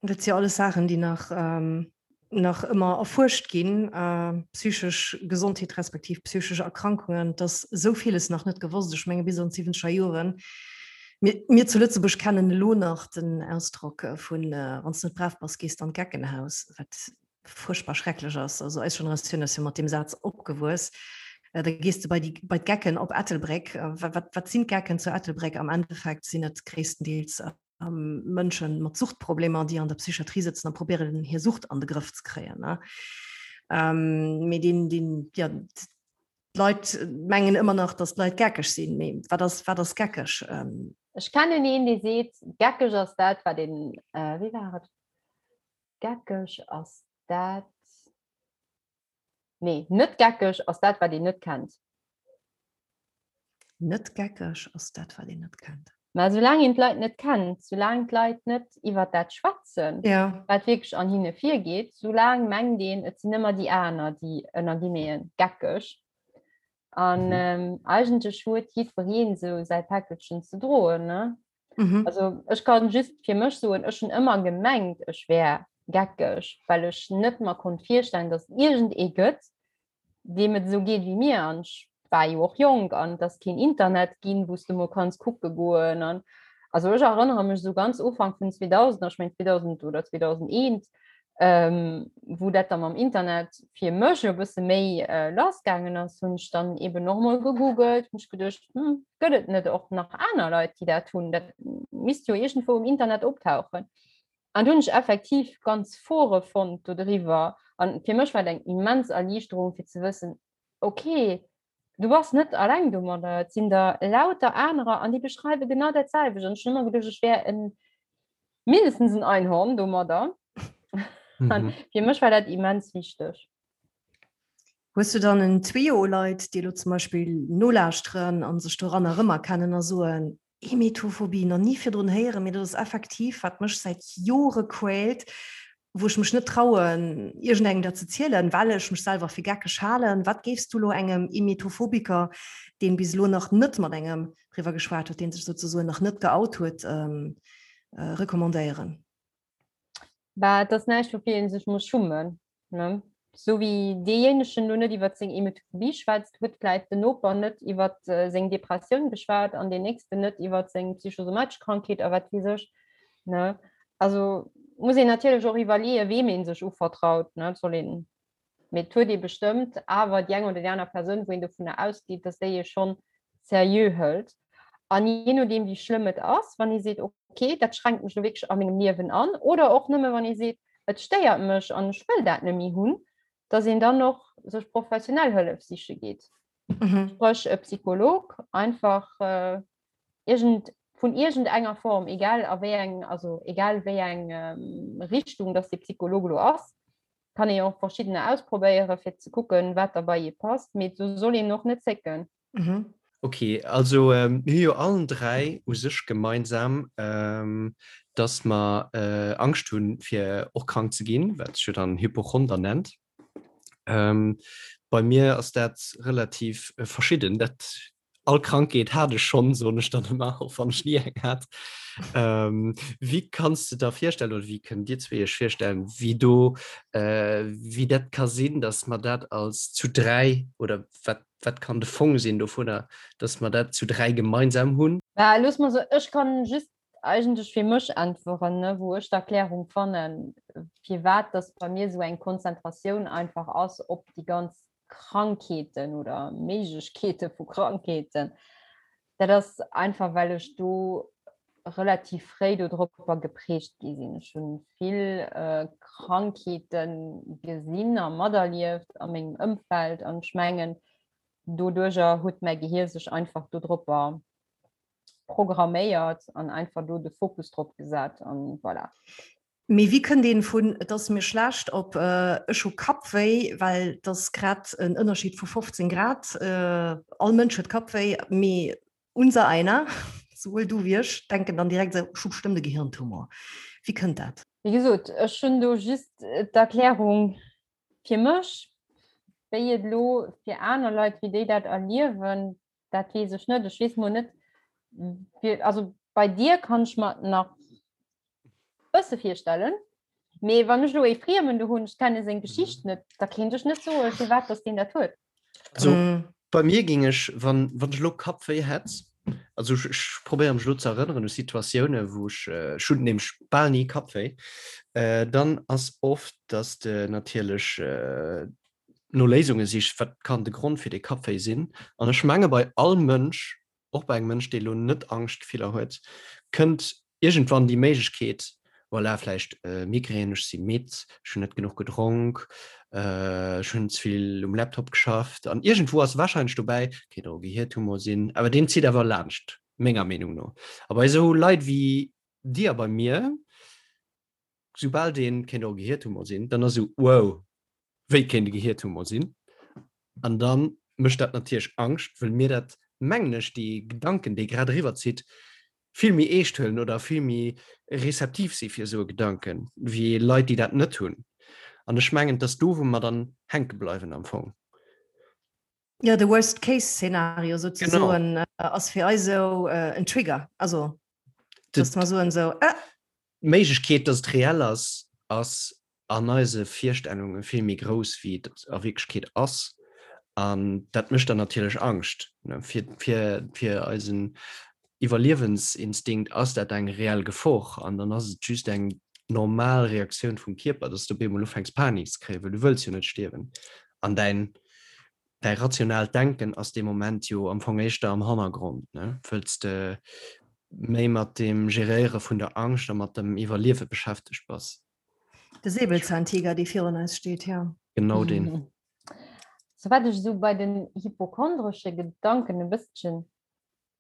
Dat si alles Saachen, déi nach, nach ëmmer erfuerscht ginn, psychesch Gesondheet respektiv psychesch Erkrankungen. Et ass esou villes nach net gewosst. Ech menge bis an d'siwwenzeger Joren, mir, mir zu Lëtzebuerg kennen elo nach den Ausdrock vun, wann s de net brav bass, gees de an d'Geckenhaus, wat fuerchtbar schrecklech ass. Also eis Generatioun ass jo mat deem Saz opgewuess. Da gees de bei déi, bei d'Gecken op Ettelbréck. Wat, wat sinn d'Gecken zu Ettelbréck? Am Endeffekt sinn et gréisstendeels Mënschen mat Suchtproblemer, déi an der Psychiatrie sëtzen a probéieren hir Sucht an de Grëff ze kréien. Mee deen, deen, ja, d'Leit mengen ëmmer nach, datt d'Leit geckeg sinn. Mee wat ass, wat ass geckeg? Ech kennen een, dee seet, geckeg ass dat, wat een, wéi war et, geckeg ass dat, Nee, net geckeg ass dat, wat een net kennt. Net geckeg ass dat, wat een net kennt. Mä soulaang een d'Leit net kennt, soulaang d'Leit net iwwer dat schwätzen, ja. wat wierklech an hinne virgeet, soulaang mengt een, et sinn ëmmer déi aner, déi ënner Guillemeten geckeg. An mhm. ähm, eigentlech huet jiddwereen esou säi Päckelchen ze droen. Ne? Mhm. Also ech kann just fir mech soen, ech hunn ëmmer gemengt, ech wär geckeg, well ech net mer konnt virstellen, dass iergend ee gëtt, deem et esou geet wéi mir. An ech war jo och jonk an et ass keen Internet ginn, wou s de mol kanns kucke goen. An also ech erënnere mech esou ganz Ufank vun 2000, ech meng 2000 oder 2001, ähm, wou dat da mam Internet fir mech e bësse méi äh, lass gaangen ass, hunn ech dann eben och mol gegoogelt, hunn ech geduecht, hm, gëtt et net och nach aner Leit, déi dat hunn? Dat misst jo iergendwou um Internet optauchen. An du hunn ech effektiv ganz Fore fonnt do driwwer. An fir mech war et eng immens Erliichterung fir ze wëssen, okay, du bass net alleng domadder, et sinn der lauter anerer an déi beschreiwe genau dat selwecht. An ech hunn ëmmer geduecht, ech wär en mindestens en Einhorn domadder. Mhm. Fir mech war dat immens wichteg. Hues du dann en Trio u Leit, déi elo zum Beispill nolauschteren a sech doranner erëmerkennen a soen, Emetophobie, nach ni virdrun héieren, mee dat ass effektiv, wat mech säit Jore quält, wou ech mech net trauen, iergendengem dat ze zielen, well ech mech selwer fir geckeg halen. Wat géifs du elo engem Emetophobiker, deen bis elo nach net mat engem driwwer geschwat huet, deen sech souzesoen nach net geout huet, recommandéieren? Bah, et ass näischt, woufir ee sech muss schummen. Ne? Sou wéi deejéinegen lo net iwwer seng Emetophobie schwätzt, huet vläit den Noper net iwwer seng Depressioun geschwat an deen nächsten net iwwer seng psychosomatesch Krankheet a wat weess ech. Ne? Also muss een natierlech och iwwerleeën, weem ee sech uvertraut. Ne? Et soll een, mee et huet ee bestëmmt awer déi eng oder déi aner Persoun, wou een dovunner ausgeet, dass déi ee schonn seriö hëlt. An jee nodeem, wéi schlëmm et ass, wann ee seet, okay, dat schränkt mech lo wierklech a mengem Liewen an, oder och nëmme wann ee seet, et stéiert mech an ech wëll dat net méi hunn, dass een dann och sech professionell Hëllef siche geet. Mhm. Spréch e Psycholog, einfach äh, irgend, vun iergendenger Form, egal a wéi eng, also egal wéi eng ähm, Richtung dass de Psycholog lo ass, kann ee och verschiddener ausprobéiere fir ze kucken, wat da bei ee passt, mee do soll een och net zécken. Mhm. Ok, also mir hu jo allen 3 u sech gemeinsam, dass mer Angscht hunn, fir och krank ze ginn, wat sech jo dann Hypochonder nennt. Bei mir ass dat relativ verschidden. Dat all Krankheet hat ech schonn, soen ech dann ëmmer, och wann ech ni eng hat. Wéi kanns de der virstellen oder wéi kënnt Dir zwee Iech virstellen, wéi do, wéi dat ka sinn, dass mer dat als zu 3 oder wat Wat kann de Fong sinn dovunner, dass mer dat zu 3 gemeinsam hunn? Bah, looss mer soen, ech kann just eigentlech fir mech äntweren, ne, wou ech d'Erklärung fannen, firwat dass bei mir esou eng Konzentratioun einfach ass op déi ganz. Krankheeten oder Méiglechkeete vu Krankheeten. Dat ass einfach, well ech do relativ fréi dodropper geprägt gi sinn. Ech hunn vill Krankheete gesinn a materlieft a mengem Ëmfeld an ech mengen, doduerjer huet mäi Gehier sech einfach dodropper programméiert an einfach do de Fokus drop gesat an voilà. Mee wéi kënnt een vun et ass mir schlecht op ech hu Kappwéi, well et ass grad en Ënnerscheed vu 15 Grad, all Mënsch huet Kappwéi, mee unser einer, souwuel du wéi ech, denken dann direkt esou, ech hu bestëmmt e Gehirntumor. Wéi kënnt dat? Wéi gesot, ech hunn do just d'Erklärung fir mech, wéi et elo fir aner Leit, wéi déi dat erliewen, dat weess ech net. Ech weess mol net, fir, also bei dir kann ech mer nach bësse virstellen, mee wann ech elo ee Friemen do hunn, ech kenne seng Geschicht net, da kéint ech net soen, firwat dass deen dat huet. Also bei mir géing ech, wann, wann ech elo Kappwéi hätt, also ech, ech probéiere mech elo ze erënneren u Situatioune wou ech, ech hunn nämlech bal ni Kappwéi, dann ass oft, dass de natierlech no Léisunge sicht, wat kann de Grond fir dee Kappwéi sinn. An ech menge bei all Mënsch, och bei engem Mënsch, dee elo net Angschtgefiller huet, kënnt iergendwann déi Méiglechkeet, voilà, vläicht Migrän, ech si midd, ech hunn net genuch gedronk, ech hunn ze vill um Laptop geschafft. An iergendwou ass warscheinlech dobäi, kéint och e Gehirtumor sinn, awer deen zitt awer laanscht, menger Meenung no. A bei esou Leit wéi dir a bei mir, soubal deen kéint och e Gehirtumor sinn, dann ass esou, wow, wéi kéint e Gehirtumor sinn? An da mécht dat natierlech Angscht, wëll mir dat, mengen ech, dee Gedanken, dee grad eriwwer zitt, vill méi eescht huelen oder vill méi rezeptiv si fir esou e Gedanken, wéi Leit, déi dat net hunn. An ech mengen, et ass do, wou mer dann hänke bleiwen am Fong. Jo, de Worst-Case-Szenario souzesoen ass fir eis esou en Trigger, also dass mer soen esou, ah! D'Méiglechkeet, dass et reell ass, ass an eise Virstellunge vill méi grouss, wéi et a Wierklechkeet ass. An dat mécht dann natierlech Angscht. Fir, fir, fir eisen Iwwerliewensinstinkt ass dat eng reell Gefor. An dann ass et just eng normal Reaktioun vum Kierper, dass du op eemol ufänks Panik ze kréien, well du wëlls jo net stierwen. An däin däi rationaalt Denken ass dee Moment jo am Fong éischter am Hannergrond, ne? Wëlls de méi mat dem Geréiere vun der Angscht a mat dem Iwwerliewe beschäftegt bass. De Säbelzahntiger, dee virun eis steet, jo. Genau deen. So wat ech esou bei den hypochondresche Gedanken e bësschen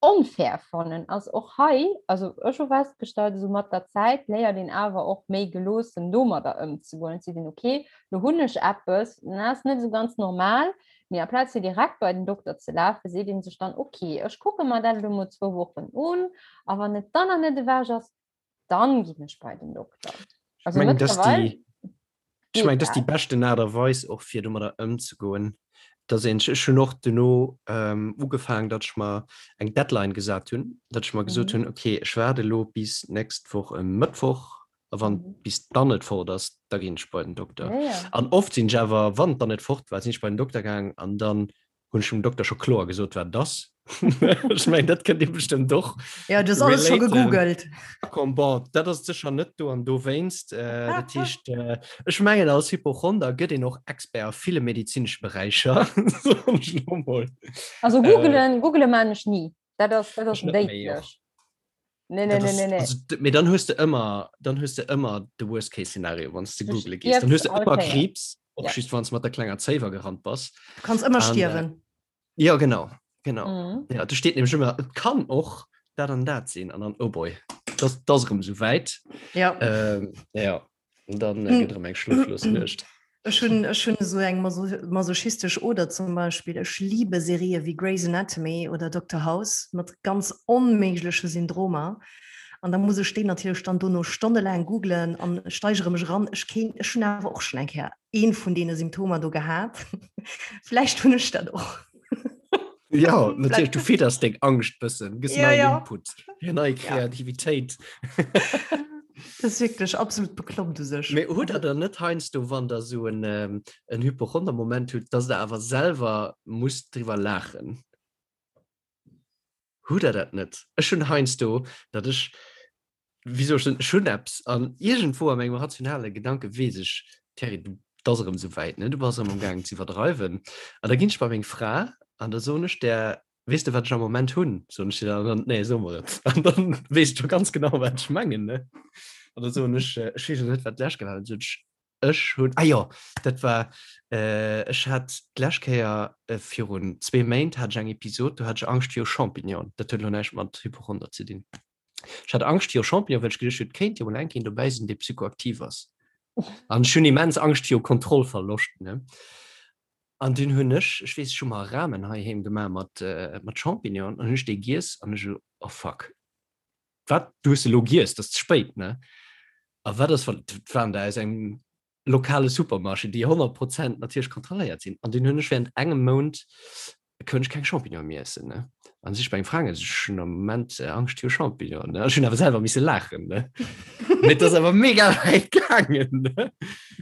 onfair fannen ass och hei, also ech hu festgestallt, esou mat der Zäit léiert een awer och méi geloossen domadder ëmzegoen. Et seet een, okay, lo hunn ech eppes, dat ass net esou ganz normal, mee amplaz fir direkt bei den Dokter ze lafen, seet ee sech dann, okay, ech kucke mer dat elo mol zwou Wochen un a wann et dann nach net ewech ass, dann ginn ech bei den Dokter. Also ich mein, dass die, ich mein, dass die beschten Art a Weis och fir domadder ëmzegoen, dass een ech hunn och duerno ähm, ugefaangen, datt ech mer eng Deadline gesat hunn, datt ech mer gesot mhm. hunn, okay, ech waarde lo bis nächst Woch e Mëttwoch a wann mhm. bis dann net fort ass, da ginn ech bei den Dokter. Ja, ja. An oft sinn ech awer, wann dann net fort war, sinn ech bei den Dokter gaang an dann hunn ech dem Dokter scho kloer gesot, wat et ass. Ech mengen, dat kënnt Dir bestëmmt och Ja, du hues alles scho gegoogelt. Komm, bon, dat ass sécher net do an dowéinst. Äh, dat heescht, äh, ech mengen, als Hypochonder gëtt een och Expert a ville medezinesche Beräicher. Soen ech lo mol. Also googelen, äh, googele man ech ni. Dat ass, dat ass déidlech. Nee, nee, nee, nee, nee. Also, mee dann hues de ëmmer, dann hues de ëmmer de Worst-Case-Szenario, wann s de googele gees. Dann hues de ëmmer Kriibs, och ja. just wann s mat der klenger Zéiwer gerannt bass. Du kanns ëmmer stierwen. Äh, ja, genau. Genau. Mhm. Ja, do steet nämlech ëmmer, et kann och dat an dat sinn. An dann, oh boy, das, das erëm sou wäit. Ja. Ähm, ja. Und dann äh, gëtt erëm eng schloflos Nuecht. Ech hunn ech hunn esou eng masochistesch Oder zum Beispill. Ech liebe Serië wéi Grey's Anatomy oder Dokter House mat ganz onméigleche Syndromer. An da muss ech déi natierlech dann dono stonnelaang googlen an steigere mech eran. Ech kéint, ech hunn awer och schonn eng Kéier ee vun deene Symptomer do gehat. Vläicht hunn ech dat och. Ja, natierlech, du fidders deng Angscht bëssen, gëss ja, neien ja. Input, fir nei Kreativitéit. Ja. Das ist wirklich absolut bekloppt u sech. Mee hutt der dann net heiansdo, wann der esou en, ähm, en Hypochonder-Moment hutt, dass der awer selwer musst driwwer laachen? Hutt der dat net? Ech hunn heiansdo, datt ech, wéi soll ech soen, ech hunn eppes an iergendwou a mengem rationale Gedanke weess ech, Thierry, du. Et ass erëm esou wäit, ne? Du bass erëm am gaangen ze iwwerdreiwen. An da ginn ech bei meng Fra an da soen ech där, Weess de, wat ech am Moment hunn? Soen ech dir dann, an dann, Nee, so mer et. An dann weess ech scho ganz genau, wat ech mengen, ne? An da soen ech, ech weess elo net, wat d'lescht Kéier war, dann sot ech, Ech hunn, ah jo, dat war, ech hat d'lescht Kéier virun zwee Méint hat ech eng Episod, do hat ech Angscht viru Champignonen. Dat huet elo näischt mat Hypochonder ze dinn. Ech hat Angscht viru Champignonen, well ech geduecht hunn, et kéint jo mol eng Kéier een dobäi sinn, dee psychoaktiv ass. An ech hunn immens Angscht viru Kontrollverloscht, ne. An dunn hunn ech, ech weess, ech hu mer Ramen heiheem gemaach mat, mat Champignonen an hunn ech déi giess an ech esou, oh fuck, wat, du hues se elo giess, dat ass ze spéit, ne? A wat ass, wann, dat waren der aus engem lokale Supermarché, déi 100 Prozent natierlech kontrolléiert sinn. An dunn hunn ech während engem Mount konnt ech keng Champignonen méi iessen, ne? An si ech bei eng Fra gaangen, ech hunn am Moment Angscht viru Champignonen, ne? Ech hunn awer selwer misse laachen, ne? Mee et ass awer mega wäit gaangen, ne?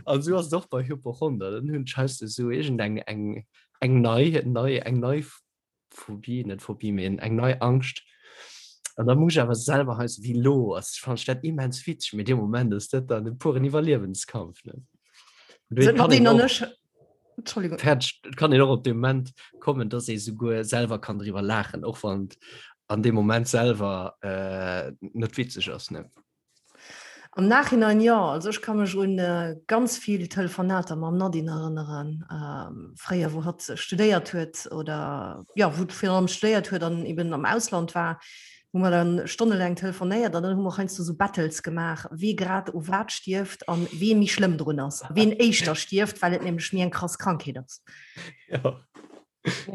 An esou ass et och bei Hypochonder, dann hunn ech heiansdo esou iergendeng eng eng nei nei eng nei Phobie, net Phobie, mee eng nei Angscht. An da muss ech awer selwer heiansdo, wéi elo ass, fannen ech dat immens witzeg, mee dee Moment ass dat dann e puren Iwwerliewenskampf, ne? An dofir kann een och. Entschuldigung. Fäerdeg. Et kann een och op de Moment kommen, dass ee souguer selwer kann driwwer laachen, och wann et an deem Moment selwer äh, net witzeg ass. Ne? Am Nachhinein jo. Also ech ka mech un äh, ganz vill Telefonater mam Nadine erënneren, ähm, fréier wou hatt studéiert huet oder ja, wou virun allem studéiert huet an eben am Ausland war. hu mer dann stonnelaang telefonéiert an dann hu mer heiansdo sou Battles gemaach, wee grad u wat stierft an wee méi schlëmm drun ass, ween éischter stierft, well et nämlech méi eng krass Krankheet ass. Ja.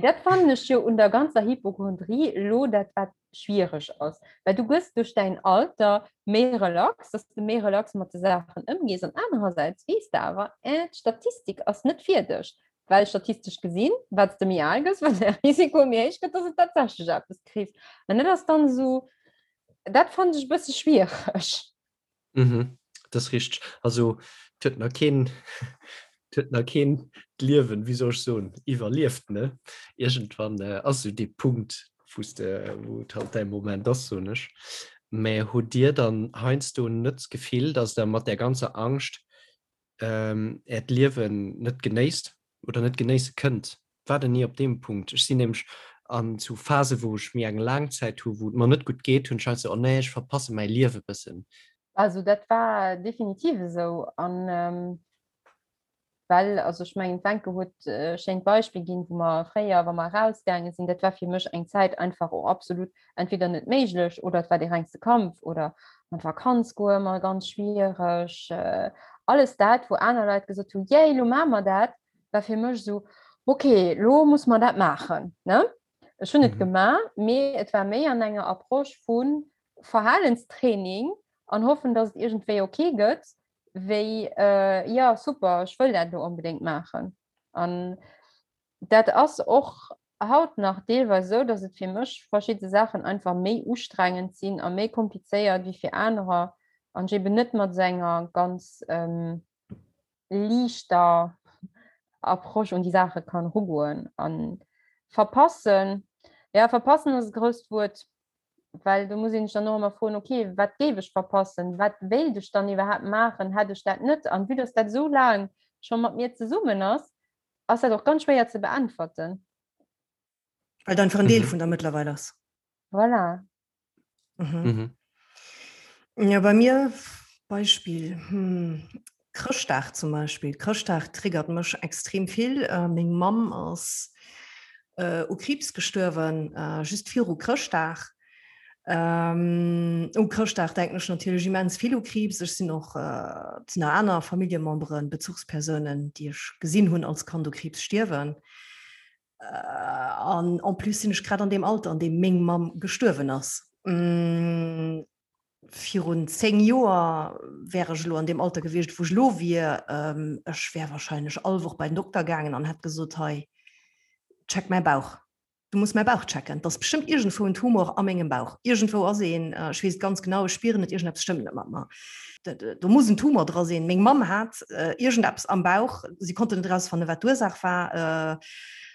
Dat fannen ech jo un der ganzer Hypochondrie elo dat wat schwiereg ass, well du gëss duerch däin Alter méi relax, dass de méi relax mat de Saachen ëmgees an anerersäits weess de awer, eh, d'Statistik ass net fir dech. Well statistesch gesinn, wat s de méi al gëss, wat däi Risiko méi héich gëtt, dass et tatsächlech eppes kriss. An dat ass dann esou, dat fannen ech e bësse schwiereg. Mhm, dat ass richteg. Also et huet nach keen, et huet nach keen d'Liewen, wéi soll ech soen, iwwerlieft, ne? Iergendwann ass esou dee Punkt, wou s de, wou et halt däi Moment ass, soen ech. Mä hutt Dir dann heiansdo net d'Gefill, dass Der mat där ganzer Angscht Äert Liewen net genéisst oder net genéisse kënnt. War der ni op deem Punkt? Ech sinn nämlech an zu Phase wou ech méi eng laang Zäit hu wou et mer net gutt geet, hunn ech halt sou, oh nee, ech verpasse mäi Liewe bëssen. Also dat war definitiv esou an well, also ech mengen d'Wencke huet e schéint Beispill ginn, wou mer fréier, wa mer erausgaange sinn, dat war fir mech eng Zäit einfach och absolut entweder net méiglech oder et war dee rengste Kampf oder an d'Vakanz goe ëmmer ganz schwiereg. Alles dat, wou aner Leit gesot hunn, yay, lo maache mer dat, war fir mech esou, okay, lo muss mer dat maachen, ne? Ech hunn et gemaach, mee et war méi an enger Approche vu Verhalenstraining an hoffen, datt et iergendwéi okay gëtt, wéi, jo, super, ech wëll dat elo onbedéngt maachen. An dat ass och haut nach deelweis esou, dass et fir mech verschidde Saachen einfach méi ustrengend sinn a méi komplizéiert wéi fir anerer an ech eben net mat esou enger ganz liichter Approche un déi Saache kann erugoen. An verpassen, ja verpassen ass e grousst Wuert, well do muss een sech dann och ëmmer froen, okay, wat géif ech verpassen, wat wéilt ech dann iwwerhaapt maachen, hätt ech dat net? An vue dass dat esou laang scho mat mir zesummen ass, ass dat och ganz schwéier ze beäntwerten. Well et einfach en Deel vun der mëttlerweil ass. Voilà. Mhm. Mhm. Ja, bei mir Beispiel hm, Chrëschtdag zum Beispiel. Chrëschtdag triggert mech extrem vill. Äh, meng Mamm ass äh, u Kriibs gestuerwen, äh, just viru Chrëschtdag. Ähm, u Chrëschtdag denken ech natierlech immens vill u Kriibs. Ech sinn och äh, sinn nach aner Familljememberen, Bezuchspersounen, déi ech gesinn hunn als Kand u Kriibs stierwen. Äh, an en plus sinn ech grad an deem Alter, an deem meng Mamm gestuerwen ass. Mm, virun 10 Joer wär ech elo an deem Alter gewiescht, wou ech elo wier. Ähm, ech wär wahrscheinlech all Woch bei den Dokter gaangen an hätt gesot, hei, check mäi Bauch. Du muss mäi Bauch checken. Et ass bestëmmt iergendwou en Tumor a mengem Bauch. Iergendwou ass een, ech weess et ganz genau, ech spieren et, iergendeppes stëmmt net mat mer. Do muss en Tumor dra sinn. Meng Mamm hat iergendeppes am Bauch, si konnten net erausfannen, wat d'Ursaach war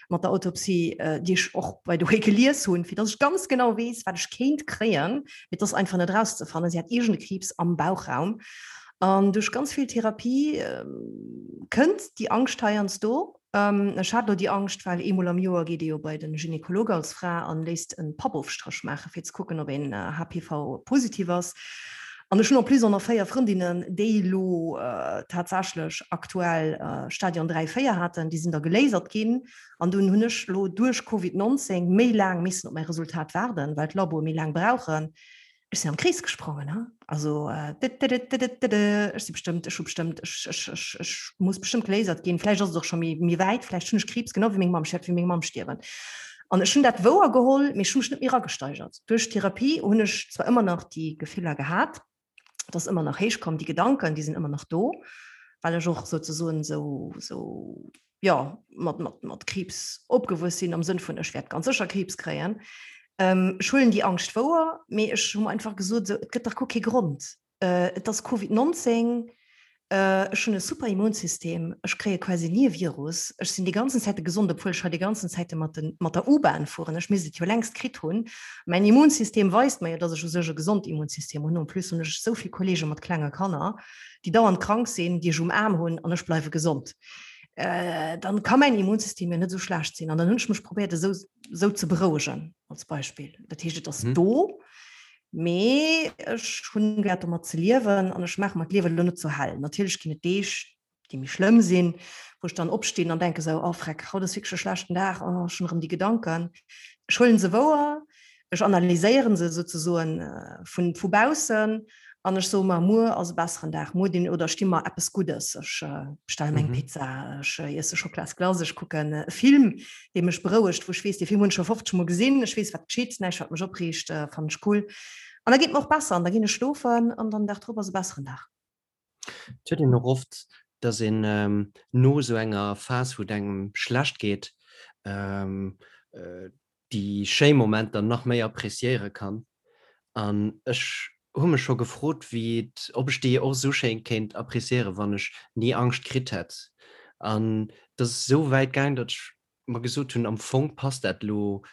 mat der Autopsie, déi ech och by the way gelies hunn, fir dass ech ganz genau weess, wat ech kéint kréien. Mee et ass einfach net erauszefannen. Si hat iergende Kriibs am Bauchraum. An duerch ganz vill Therapie. Kënnt déi Angscht heiansdo? Ech hat elo déi Angscht, well eemol am Joer geet ee jo bei de Gynekolog als Fra an léisst e Pappofstréch maachen, fir ze kucken, ob een HPV-positiv ass. An ech hunn en plus och nach 4 Frëndinnen, déi elo tatsächlech aktuell Stadion 3, 4 haten, déi sinn da gelasert ginn. An dunn hunn ech elo duerch Covid 19 méi laang missen op mäi Resultat waarden, well d'Laboe méi laang brauchen. Ech sinn am Krees gesprongen, ha? Also ech si bestëmmt, ech hu bestëmmt, ech, ech, ech, ech muss bestëmmt gelasert ginn. Vläicht ass et och scho méi, méi wäit, vläicht hunn ech Kriibs, genau wéi meng Mamm, ech wäert wéi meng Mamm stierwen. An ech hunn dat wouer geholl, mee ech hu mech net méi eragesteigert. Duerch d'Therapie hunn ech zwar ëmmer nach déi Gefiller gehat, et ass ëmmer nach héich komm, déi Gedanken, déi sinn ëmmer nach do, well ech och souzesoen esou, esou, jo, mat, mat, mat Kriibs opgewuess sinn, am Sënn vun, ech wäert ganz sécher Kriibs kréien. Ech huelen déi Angscht wouer, mee ech hu mer einfach gesot, esou, et gëtt dach guer kee Grond. Et ass Covid 19, ech hunn e super Immunsystem, ech kréie quasi ni e Virus, ech sinn déi ganzen Zäite gesond, obwuel ech hei déi ganzen Zäite mat de mat der U-Bahn fueren, ech misst et jo längst kritt hunn. Mäin Immunsystem weist mer jo, datt ech u sech e gesond Immunsystem hunn. En plus hunn ech esou vill Kolleege mat klenge Kanner, déi dauernd krank sinn, déi ech um Aarm hunn an ech bleiwe gesond. Dann ka mäin Immunsystem jo net esou schlecht sinn. An dann hunn ech mech probéiert esou esou ze berouegen als Beispill. Dat heescht, et ass do. Mee ech hunn geléiert domat ze liewen an ech maache mer d'Liewen elo net sou hell. Natierlech ginn et Deeg, déi méi schlëmm sinn, wou ech dann opstinn an denke sou, oh freck, haut ass wierklech e schlechten Dag, oh ech hunn erëm déi Gedanken. Ech huelen se wouer, ech analyséieren se souzesoen vun vu baussen an ech soe mer, muer ass e besseren Dag, muer dinn oder ech di mer eppes Guddes, ech bestelle mer eng Pizza, ech iesse Schocklasglace, ech kucken e Film, dee mech berouegt, wou ech weess, dee Film hunn ech scho 50 Mol gesinn, ech weess, wat geschitt, näischt, wat mech opreegt, fannen ech cool. An da geet mir och besser an da ginn ech schlofen an dann den Dag drop ass e besseren Dag. Et huet een och oft, dass een no esou enger Phas, wou et engem schlecht geet, déi schéi Momenter nach méi appréciéiere kann. An ech hu mech scho gefrot, wéi et, ob ech déi och esou schéin kéint appréciéieren, wann ech ni Angscht kritt hätt. An et ass esou wäit gaang, datt ech mer gesot hunn, am Fong passt dat elo,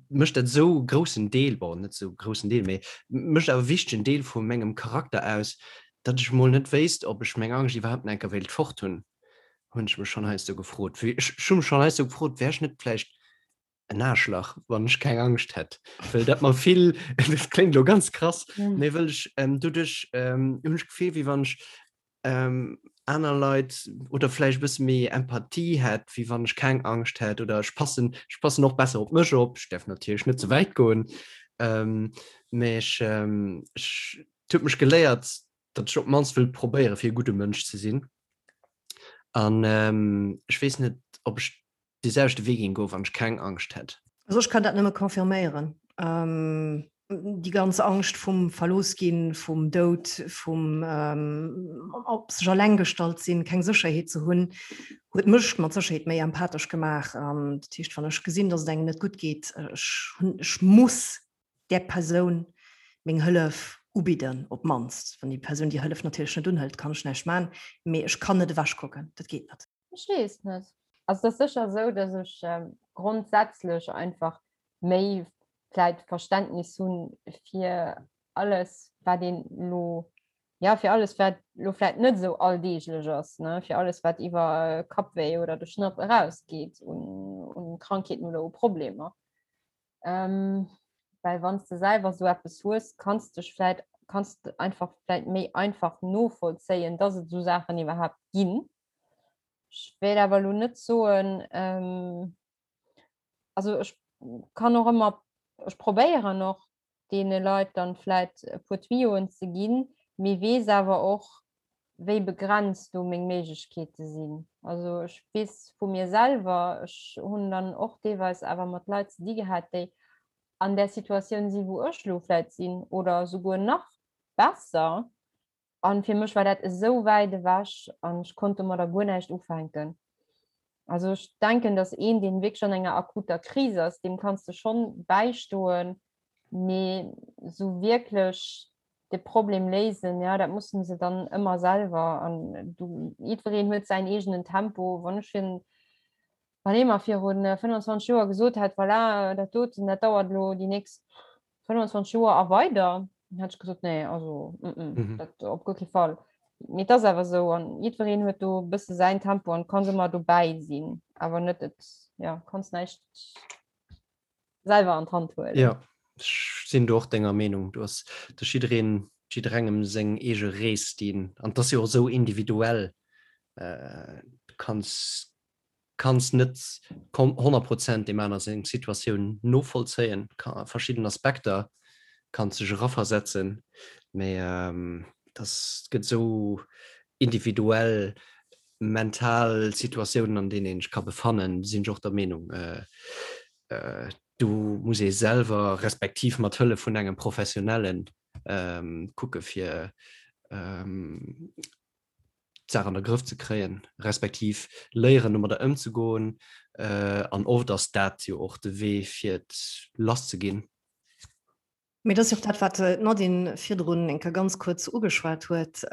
mécht dat esou e groussen Deel, bon, net esou e groussen Deel, mee mécht awer e wichtegen Deel vu mengem Charakter aus, datt ech mol net wéisst, ob ech meng Angscht iwwerhaapt nach eng Kéier wéilt fort hunn, hunn ech mech schonn heiansdo gefrot. Ech hu mech schonn heiansdo gefrot, wär ech net vläicht en Aarschlach, wann ech keng Angscht hätt, well dat mer vill, dat kléngt elo ganz krass, mee wëll ech doduerch hunn ech d'Gefill, wéi wann ech aner Leit oder vläicht e bësse méi Empathie hätt, wéi wann ech keng Angscht hätt oder ech passen, ech passen och besser op mech op. Ech däerf natierlech net ze wäit goen, mee ech, ech, et huet mech geléiert, datt ech op d'mannst wëll probéiere fir e gudde Mënsch ze sinn an ech weess net, ob ech dee selwechte Wee géing goen, wann ech keng Angscht hätt. Also ech kann dat nëmme confirméieren. Déi ganz Angscht vum Verlooss ginn, vum Doud, vum op sech alleng gestallt sinn, keng Sécherheet ze hunn, huet mech mat Sécherheet méi empathesch gemaach. Dat heescht, wann ech gesinn, datt et engem net gutt geet, ech hunn, ech muss där Persoun meng Hëllef ubidden, op d'mannst. Wann déi Persoun déi Hëllef natierlech net unhëlt, kann ech näischt maachen, mee ech kann net ewechkucken, dat geet net. Ech weess net. Also et ass sécher esou, datt ech grondsätzlech einfach méi vläit Verständnis hu fir alles, wat een elo, ja fir alles, wat elo vläit net esou alldeeglech ass, ne, fir alles, wat iwwer Kappwéi oder de Schnapp erausgeet un, un Krankheeten oder u Problemer. Well wann s de selwer esou eppes hues, kanns dech vläit, kanns de einfach vläit méi einfach novollzéien, datt et esou Saachen iwwerhaapt ginn. Ech wéilt awer elo net soen, also ech kann och ëmmer, ech probéieren och deene Leit dann vläit e puer Tuyauxen ze ginn, mee weess awer och, wéi begrenzt do meng Méiglechkeete sinn. Also ech weess vu mir selwer, ech hunn dann och deelweis awer mat Leit ze di gehat, déi an där Situatioun sinn, wou ech elo vläit sinn oder souguer nach besser, An fir mech war dat esou wäit ewech an ech konnt domadder guer näischt ufänken. Also ech denken, dass een, deen wierklech an enger akuter Kris ass, deem kanns de schonn bäistoen, mee esou wierklech de Problem léisen, ja, dat mussen se dann ëmmer selwer. An du, jiddwereen huet säin eegenen Tempo. Wann ech fir wann ee mer virun 25 Joer gesot hätt, voilà, dat doten, dat dauert elo déi nächst 25 Joer a weider, dann hätt ech gesot, nee, also mm -mm, mm -hmm. dat op guer kee Fall. Mee et ass awer esou an jiddwereen huet do e bësse säin Tempo an kanns ëmmer dobäi sinn, awer net et, ja, kanns näischt selwer an d'Hand huelen. Jo, ech sinn do och denger Meenung. Do ass de jiddereen, jidderengem seng eege Rees, déi en, an et ass jo och esou individuell, du kanns kanns net 100 Prozent deem aner seng Situatioun novollzéien, a verschidden Aspekter kanns dech eraversetzen, mee dass et gëtt esou individuell mental Situatiounen an deenen een sech ka befannen, sinn ech och der Meenung, do muss ee selwer, respektiv mat Hëllef vun engem Professionellen kucke fir d'Saach an de Grëff ze kréien, respektiv léieren domadder ëmzegoen. An oft ass dat jo och de Wee fir et lass ze ginn. Mee dat ass jo och dat, wat d'Nadine virdrun eng Kéier ganz kuerz ugeschwat huet,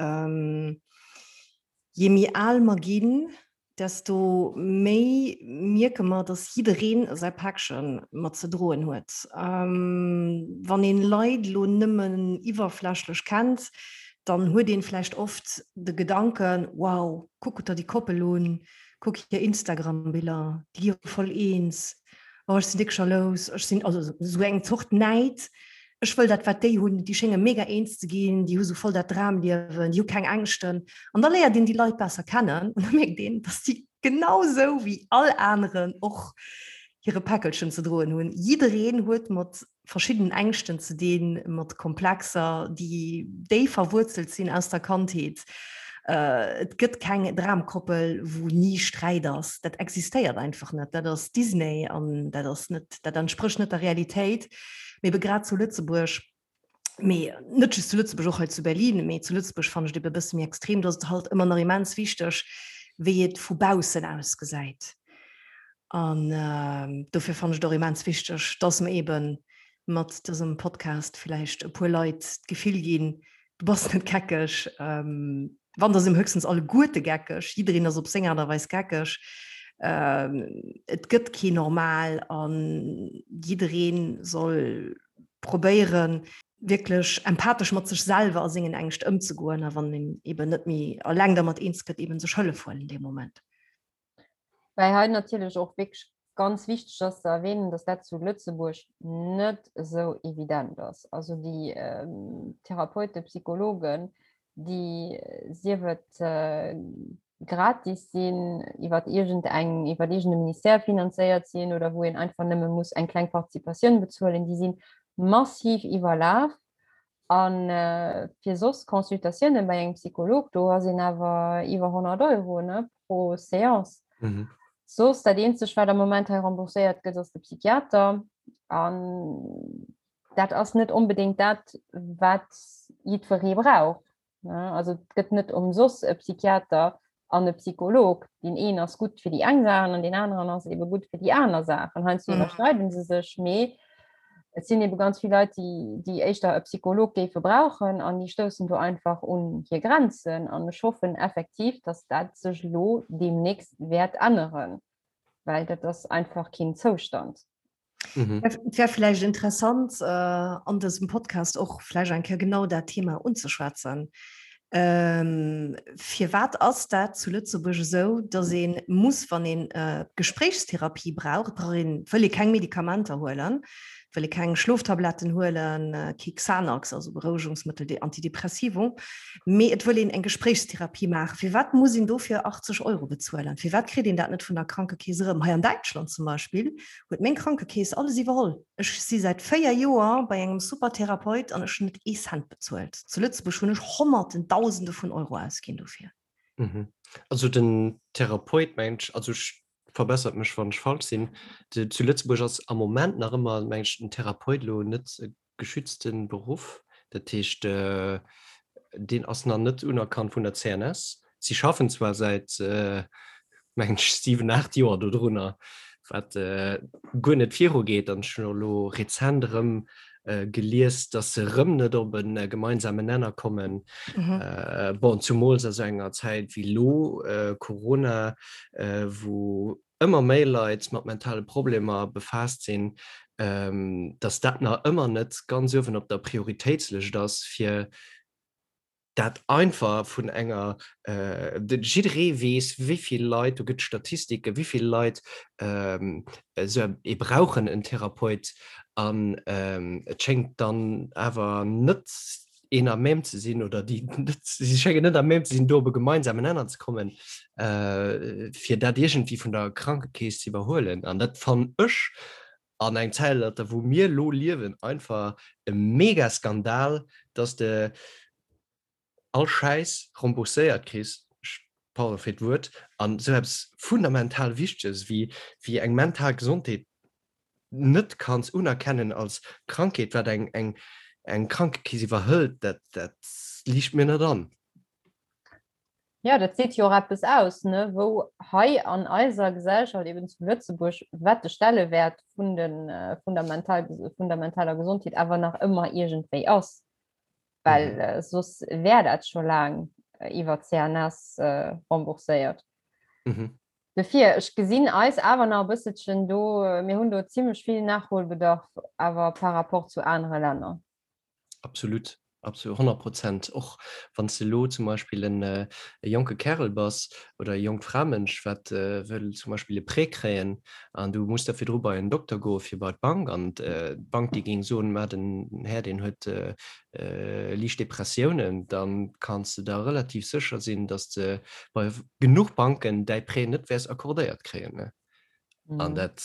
Je méi al mer ginn, desto méi mierke mer, dass jiddereen säi Päckche mat ze droen huet. Wann een Leit elo nëmmen iwwerflächlech kennt, dann huet een vläicht oft de Gedanken, Wow, kuck der déi Koppel un, kuck hir Instagram-Biller, déi gi jo voll eens, oh ech sinn déck jalous, ech sinn, also esou eng Zort Näid, ech wëll dat wat déi hunn, déi schénge mega eens ze ginn, déi hu sou voll dat Dramliewen, déi hu keng Ängschten. An da léiert een déi Leit besser kennen an da mierkt een, dass déi genau sou wéi all aneren och hire Päckelchen ze droen hunn. Jiddereen huet mat verschiddenen Ängschten ze dinn, mat Komplexer, déi déif verwuerzelt sinn aus der Kandheet. Et gëtt keng Dramkoppel, wou ni Sträit ass. Dat existéiert einfach net. Dat ass Disney an dat ass net, dat entsprécht net der Realitéit. Mee ebe grad zu Lëtzebuerg, mee net just zu Lëtzebuerg, och hei zu Berlin, mee zu Lëtzebuerg fannen ech et ebe e bësse méi extrem, do ass et halt ëmmer nach immens wichteg, wéi et vu baussen ausgesäit. An dofir fannen ech et och immens wichteg, dass mer ebe mat dësem Podcast vläicht e puer Leit d'Gefill ginn, du bass net geckeg, wann da si mer höchstens alleguerte geckeg, jiddereen ass op seng Aart a Weis geckeg, et gëtt kee normal a jidderee soll probéieren, wierklech empathesch mat sech selwer a sengen Ängscht ëmzegoen a wann een eben net méi eleng dermat eens gëtt, eben sech Hëllef huelen dee Moment. Well hei natierlech och wierklech ganz wichteg ass ze erwähnen, dass dat zu Lëtzebuerg net esou evident ass. Also déi Therapeuten, Psychologen, déi sief et gratis sinn, iwwer iergend eng, iwwer iergend e Ministère finanzéiert sinn oder wou een einfach nëmme muss eng kleng Participatioun bezuelen, déi si massiv iwwerlaf. A fir soss Consultatioune bei engem Psycholog, do ass een awer iwwer 100 Euro ne, pro Seance. Mhm. Soss dat eenzegt, wat am Moment hei rembourséiert gëtt, ass de Psychiater. An dat ass net onbedéngt dat, wat jiddweree brauch. Also et gëtt net ëmsoss e Psychiater an e Psycholog. Deen een ass gutt fir déi eng Saachen an deen aneren ass ebe gutt fir déi aner Saachen. Heiansdo mhm. iwwerschneiden se sech, mee et sinn ebe ganz vill Leit, déi, déi éischter e Psycholog géife brauchen an déi stoussen do einfach un hir Grenzen. An ech hoffen effektiv, dass dat sech elo deemnächst wäert änneren, well dat ass einfach keen Zoustand. Mhm. Et wär vläicht interessant äh, an dësem Podcast och vläicht eng Kéier genau dat Thema unzeschwätzen. Ähm, firwat ass dat zu Lëtzebuerg esou, dass ee muss, wann een äh, Gespréichstherapie brauch, brauch een, wëll ee keng Medikamenter huelen, wëll ee keng Schloftabletten huelen, äh, kee Xanax, also Berouegungsmëttel, déi Antidepressivum, mee et wëll een eng Gespréichstherapie maachen. Firwat muss een dofir 80 Euro bezuelen? Firwat kritt een dat net vun der Krankekeess erëm? Hei an Däitschland zum Beispill huet meng Krankekeess alles iwwerholl. Ech si säit 4 Joer bei engem super Therapeut an ech hunn net ee Cent bezuelt. Zu Lëtzebuerg hunn ech Honnerten, Dausende vun Euro ausginn dofir. Mhm. Also den Therapeut mengt ech, also ech, verbessert mech wann ech falsch sinn, zu Lëtzebuerg ass am Moment nach ëmmer meng ech den Therapeut elo net e geschützte Beruff. Dat heescht deen ass nach net unerkannt vun der CNS. Si schaffen zwar säit mengen ech 7, 8 Joer dodrunner, wat guer net virugeet. An ech hunn och elo rezent erëm gelies, datt se erëm net op e gemeinsamen Nenner kommen. Bon, zumools a sou enger Zäit wéi elo, Corona, wou ëmmer méi Leit mat mentale Problemer befaasst sinn, datt dat nach ëmmer net ganz uewen op der Prioritéitslëscht ass, fir. dat einfach vun enger, jidderee weess, wéi vill Leit, do gëtt Statistiken, wéi vill Leit esou ee brauchen en Therapeut an et schéngt dann awer net een à même ze sinn oder déi net, si schéngen net à même ze sinn, do op e gemeinsamen Nenner ze kommen, fir dat iergendwéi vun der Krankekeess ze iwwerhuelen. An dat fannen ech an engem Zäitalter, wou mir elo liewen, einfach e Mega-Skandal, dass de all Schäiss rembourséiert kriss, pardon fir d'Wuert, an esou eppes fundamental Wichteges wéi, wéi eng mental Gesondheet net kanns unerkennen als Krankheet, wat eng, eng, eng Krankekeess iwwerhëlt, dat, dat liicht mir net an. Ja, dat seet jo och eppes aus, ne, wou hei an eiser Gesellschaft, eben zu Lëtzebuerg, wat de Stellewäert vun de, vun der mental, vun der mentaler Gesondheet awer nach ëmmer iergendwéi ass. Well mhm. äh, soss wär dat scho laang äh, iwwer CNS äh, rembourséiert. Mhm. Dofir, ech gesinn eis awer nach e bësselchen do, äh, mir hunn do zimmlech vill Nachholbedarf awer par rapport zu anere Länner. Absolut, absolut, 100 Prozent. Och wann s de elo zum Beispill en e jonke Kärel bass oder e jonkt Framënsch, wat wëll zum Beispill e Prêt kréien an du muss da virdru bei en Dokter goe fir bei d'Bank an d'Bank déi géing soen, ma den Här deen huet liicht Depressiounen, da kanns de der relativ sécher sinn, datt s de bei genuch Banken däi Prêt net wäers accordéiert kréien. An dat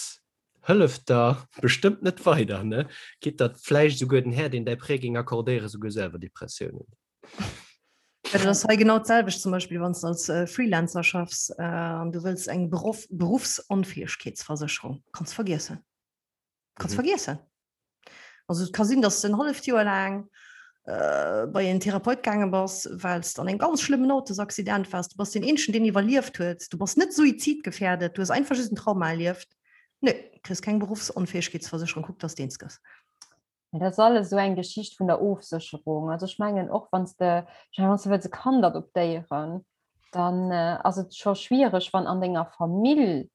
Hëlleft der bestëmmt net weider, ne? Gitt der vläicht esouguer den Här, deen däi Prêt géing accordéieren, esouguer selwer Depressiounen. Ja, dat ass hei genau d'selwecht, zum Beispill wann s de als Freelancer schaffs an du wëlls eng Beruff, Berufsonfäegkeetsversécherung, kanns vergiessen. Kanns vergiessen. Also et ka sinn, dass de en halleft Joer laang bei en Therapeut gaange bass, well s de an engem ganz schlëmmen Autosaccident waars. Du bass deen eenzegen, deen iwwerlieft huet. Du bass net suizidgefährdet, du hues einfach just en Trauma erlieft. Nö, kriss keng Berufsonfäegkeetsversécherung, kuck, dass de eens gëss. Mä dat ass alles esou eng Geschicht vun der Ofsécherung. Also ech mengen och, wann s de, ech mengen, wann s de wëlls e Kand adoptéieren, dann ass et scho schwiereg, wann an denger Famill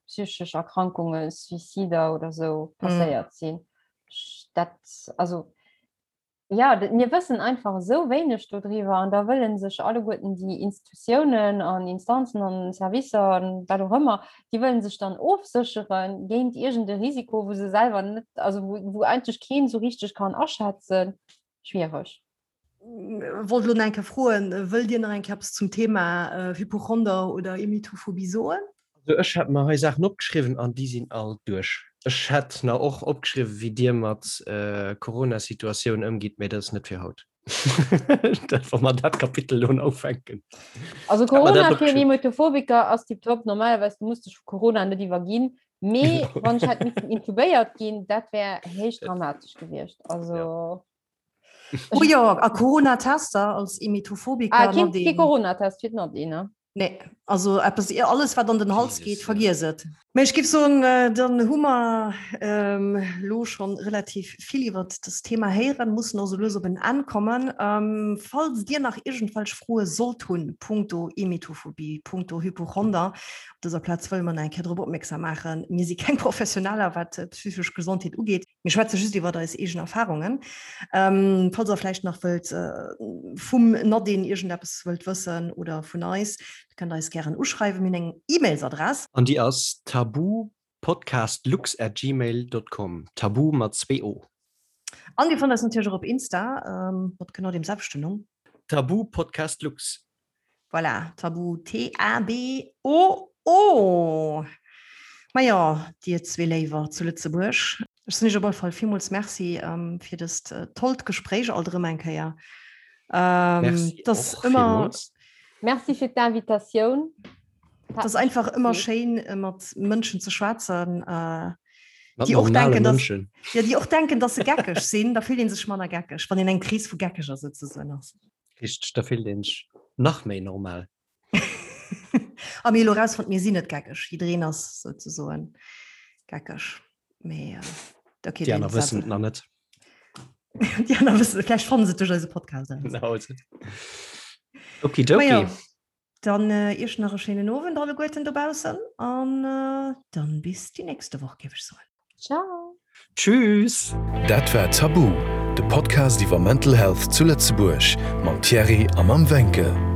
psychesch Erkrankungen, Suicider oder sou passéiert sinn. Dat, also ja, mir wëssen einfach esou wéineg dodriwwer an da wëllen sech alleguerten déi Institutiounen an Instanzen an Servicer an wat och ëmmer, déi wëllen sech dann ofséchere géint iergend e Risiko, wou se selwer net, also wou, wou eigentlech keen esou richteg kann aschätzen. Schwiereg. Wollt elo nach eng Kéier froen, wëllt Dir nach eng Kéier eppes zum Thema Hypochonder oder Emetophobie soen? Also ech hat mer hei Saachen opgeschriwwen an déi sinn all duerch. Ech hätt nach och opgeschriwwen, wéi Dir mat Corona-Situatioun ëmgitt, mä dat ass net fir haut. Dat, wa mer dat Kapitel elo ufänken. Also Corona fir en Emetophobiker ass tiptop. Normalerweis, du muss dech vu Corona net iwwerginn, mee wann ech hätt missen intubéiert ginn, dat wär héich dramatesch gewiescht. Also. Oh jo, a Corona-Tester als Emetophobiker. Ah, keen, kee Corona-Test fir d'Nadine, ne? Nee, also eppes, alles wat an den Hals geet, vergiess et. Mee ech géif soen, dann hu mer elo schonn relativ vill iwwert dëst Thema héieren, mussen och sou lues op en Enn kommen. Falls Dir nach iergendwelch Froe sollt hunn punkto Emetophobie, punkto Hypochonder, op dëser Plaz wëlle mer nach eng Kéier drop opmierksam maachen, mir si keng Professioneller wat d'psychesch Gesondheet ugeet. Mir schwätze just iwwer eis eegen Erfahrungen. Ähm, falls der vläicht nach wëllt äh, vum Nadine iergendeppes wëllt wëssen oder vun eis, da kënnt der eis gären uschreiwen. Mir hunn eng E-Mails-Adress. An déi ass taboopodcastlux at gmail dot com, Taboo mat zwee O. An Dir fannt eis natierlech och op Insta ähm, mat genau deem selwechten Numm. Taboopodcastlux. Voilà, Tabu, T-A-B-O-O. Majo, dir zwee Léiwer zu Lëtzebuerg, ech soen iech op alle Fall villmools Merci fir dëst tollt Gespréich alt erëm eng Kéier. Merci och villmools. Merci fir d'Invitatioun. Et ass einfach ëmmer schéin, mat Mënschen ze schwätzen, déi och denken, dass, ja, déi och denken, dass se geckeg sinn. Da fillt ee sech manner geckeg, wann een eng Kris vu Geckeger souzesoen ass. Richteg, da fillt een sech nach méi normal. A mir elo rausfonnt, mir sinn net geckeg. Jiddereen ass souzesoen geckeg. Mee äh, okay, Déi aner wëssen et nach net. Déi aner wëssen, vläicht fannen se et duerch eise Podcast eraus. Genau. Okidoki. Majo, dann äh, iech nach e schéinen Owend alleguerten dobaussen an äh, dann bis déi nächste Woch, géif ech soen. Ciao. Tschüss! Dat war Tabu, De Podcast iwwer Mental Health zu Lëtzebuerg mam Thierry a mam Wencke.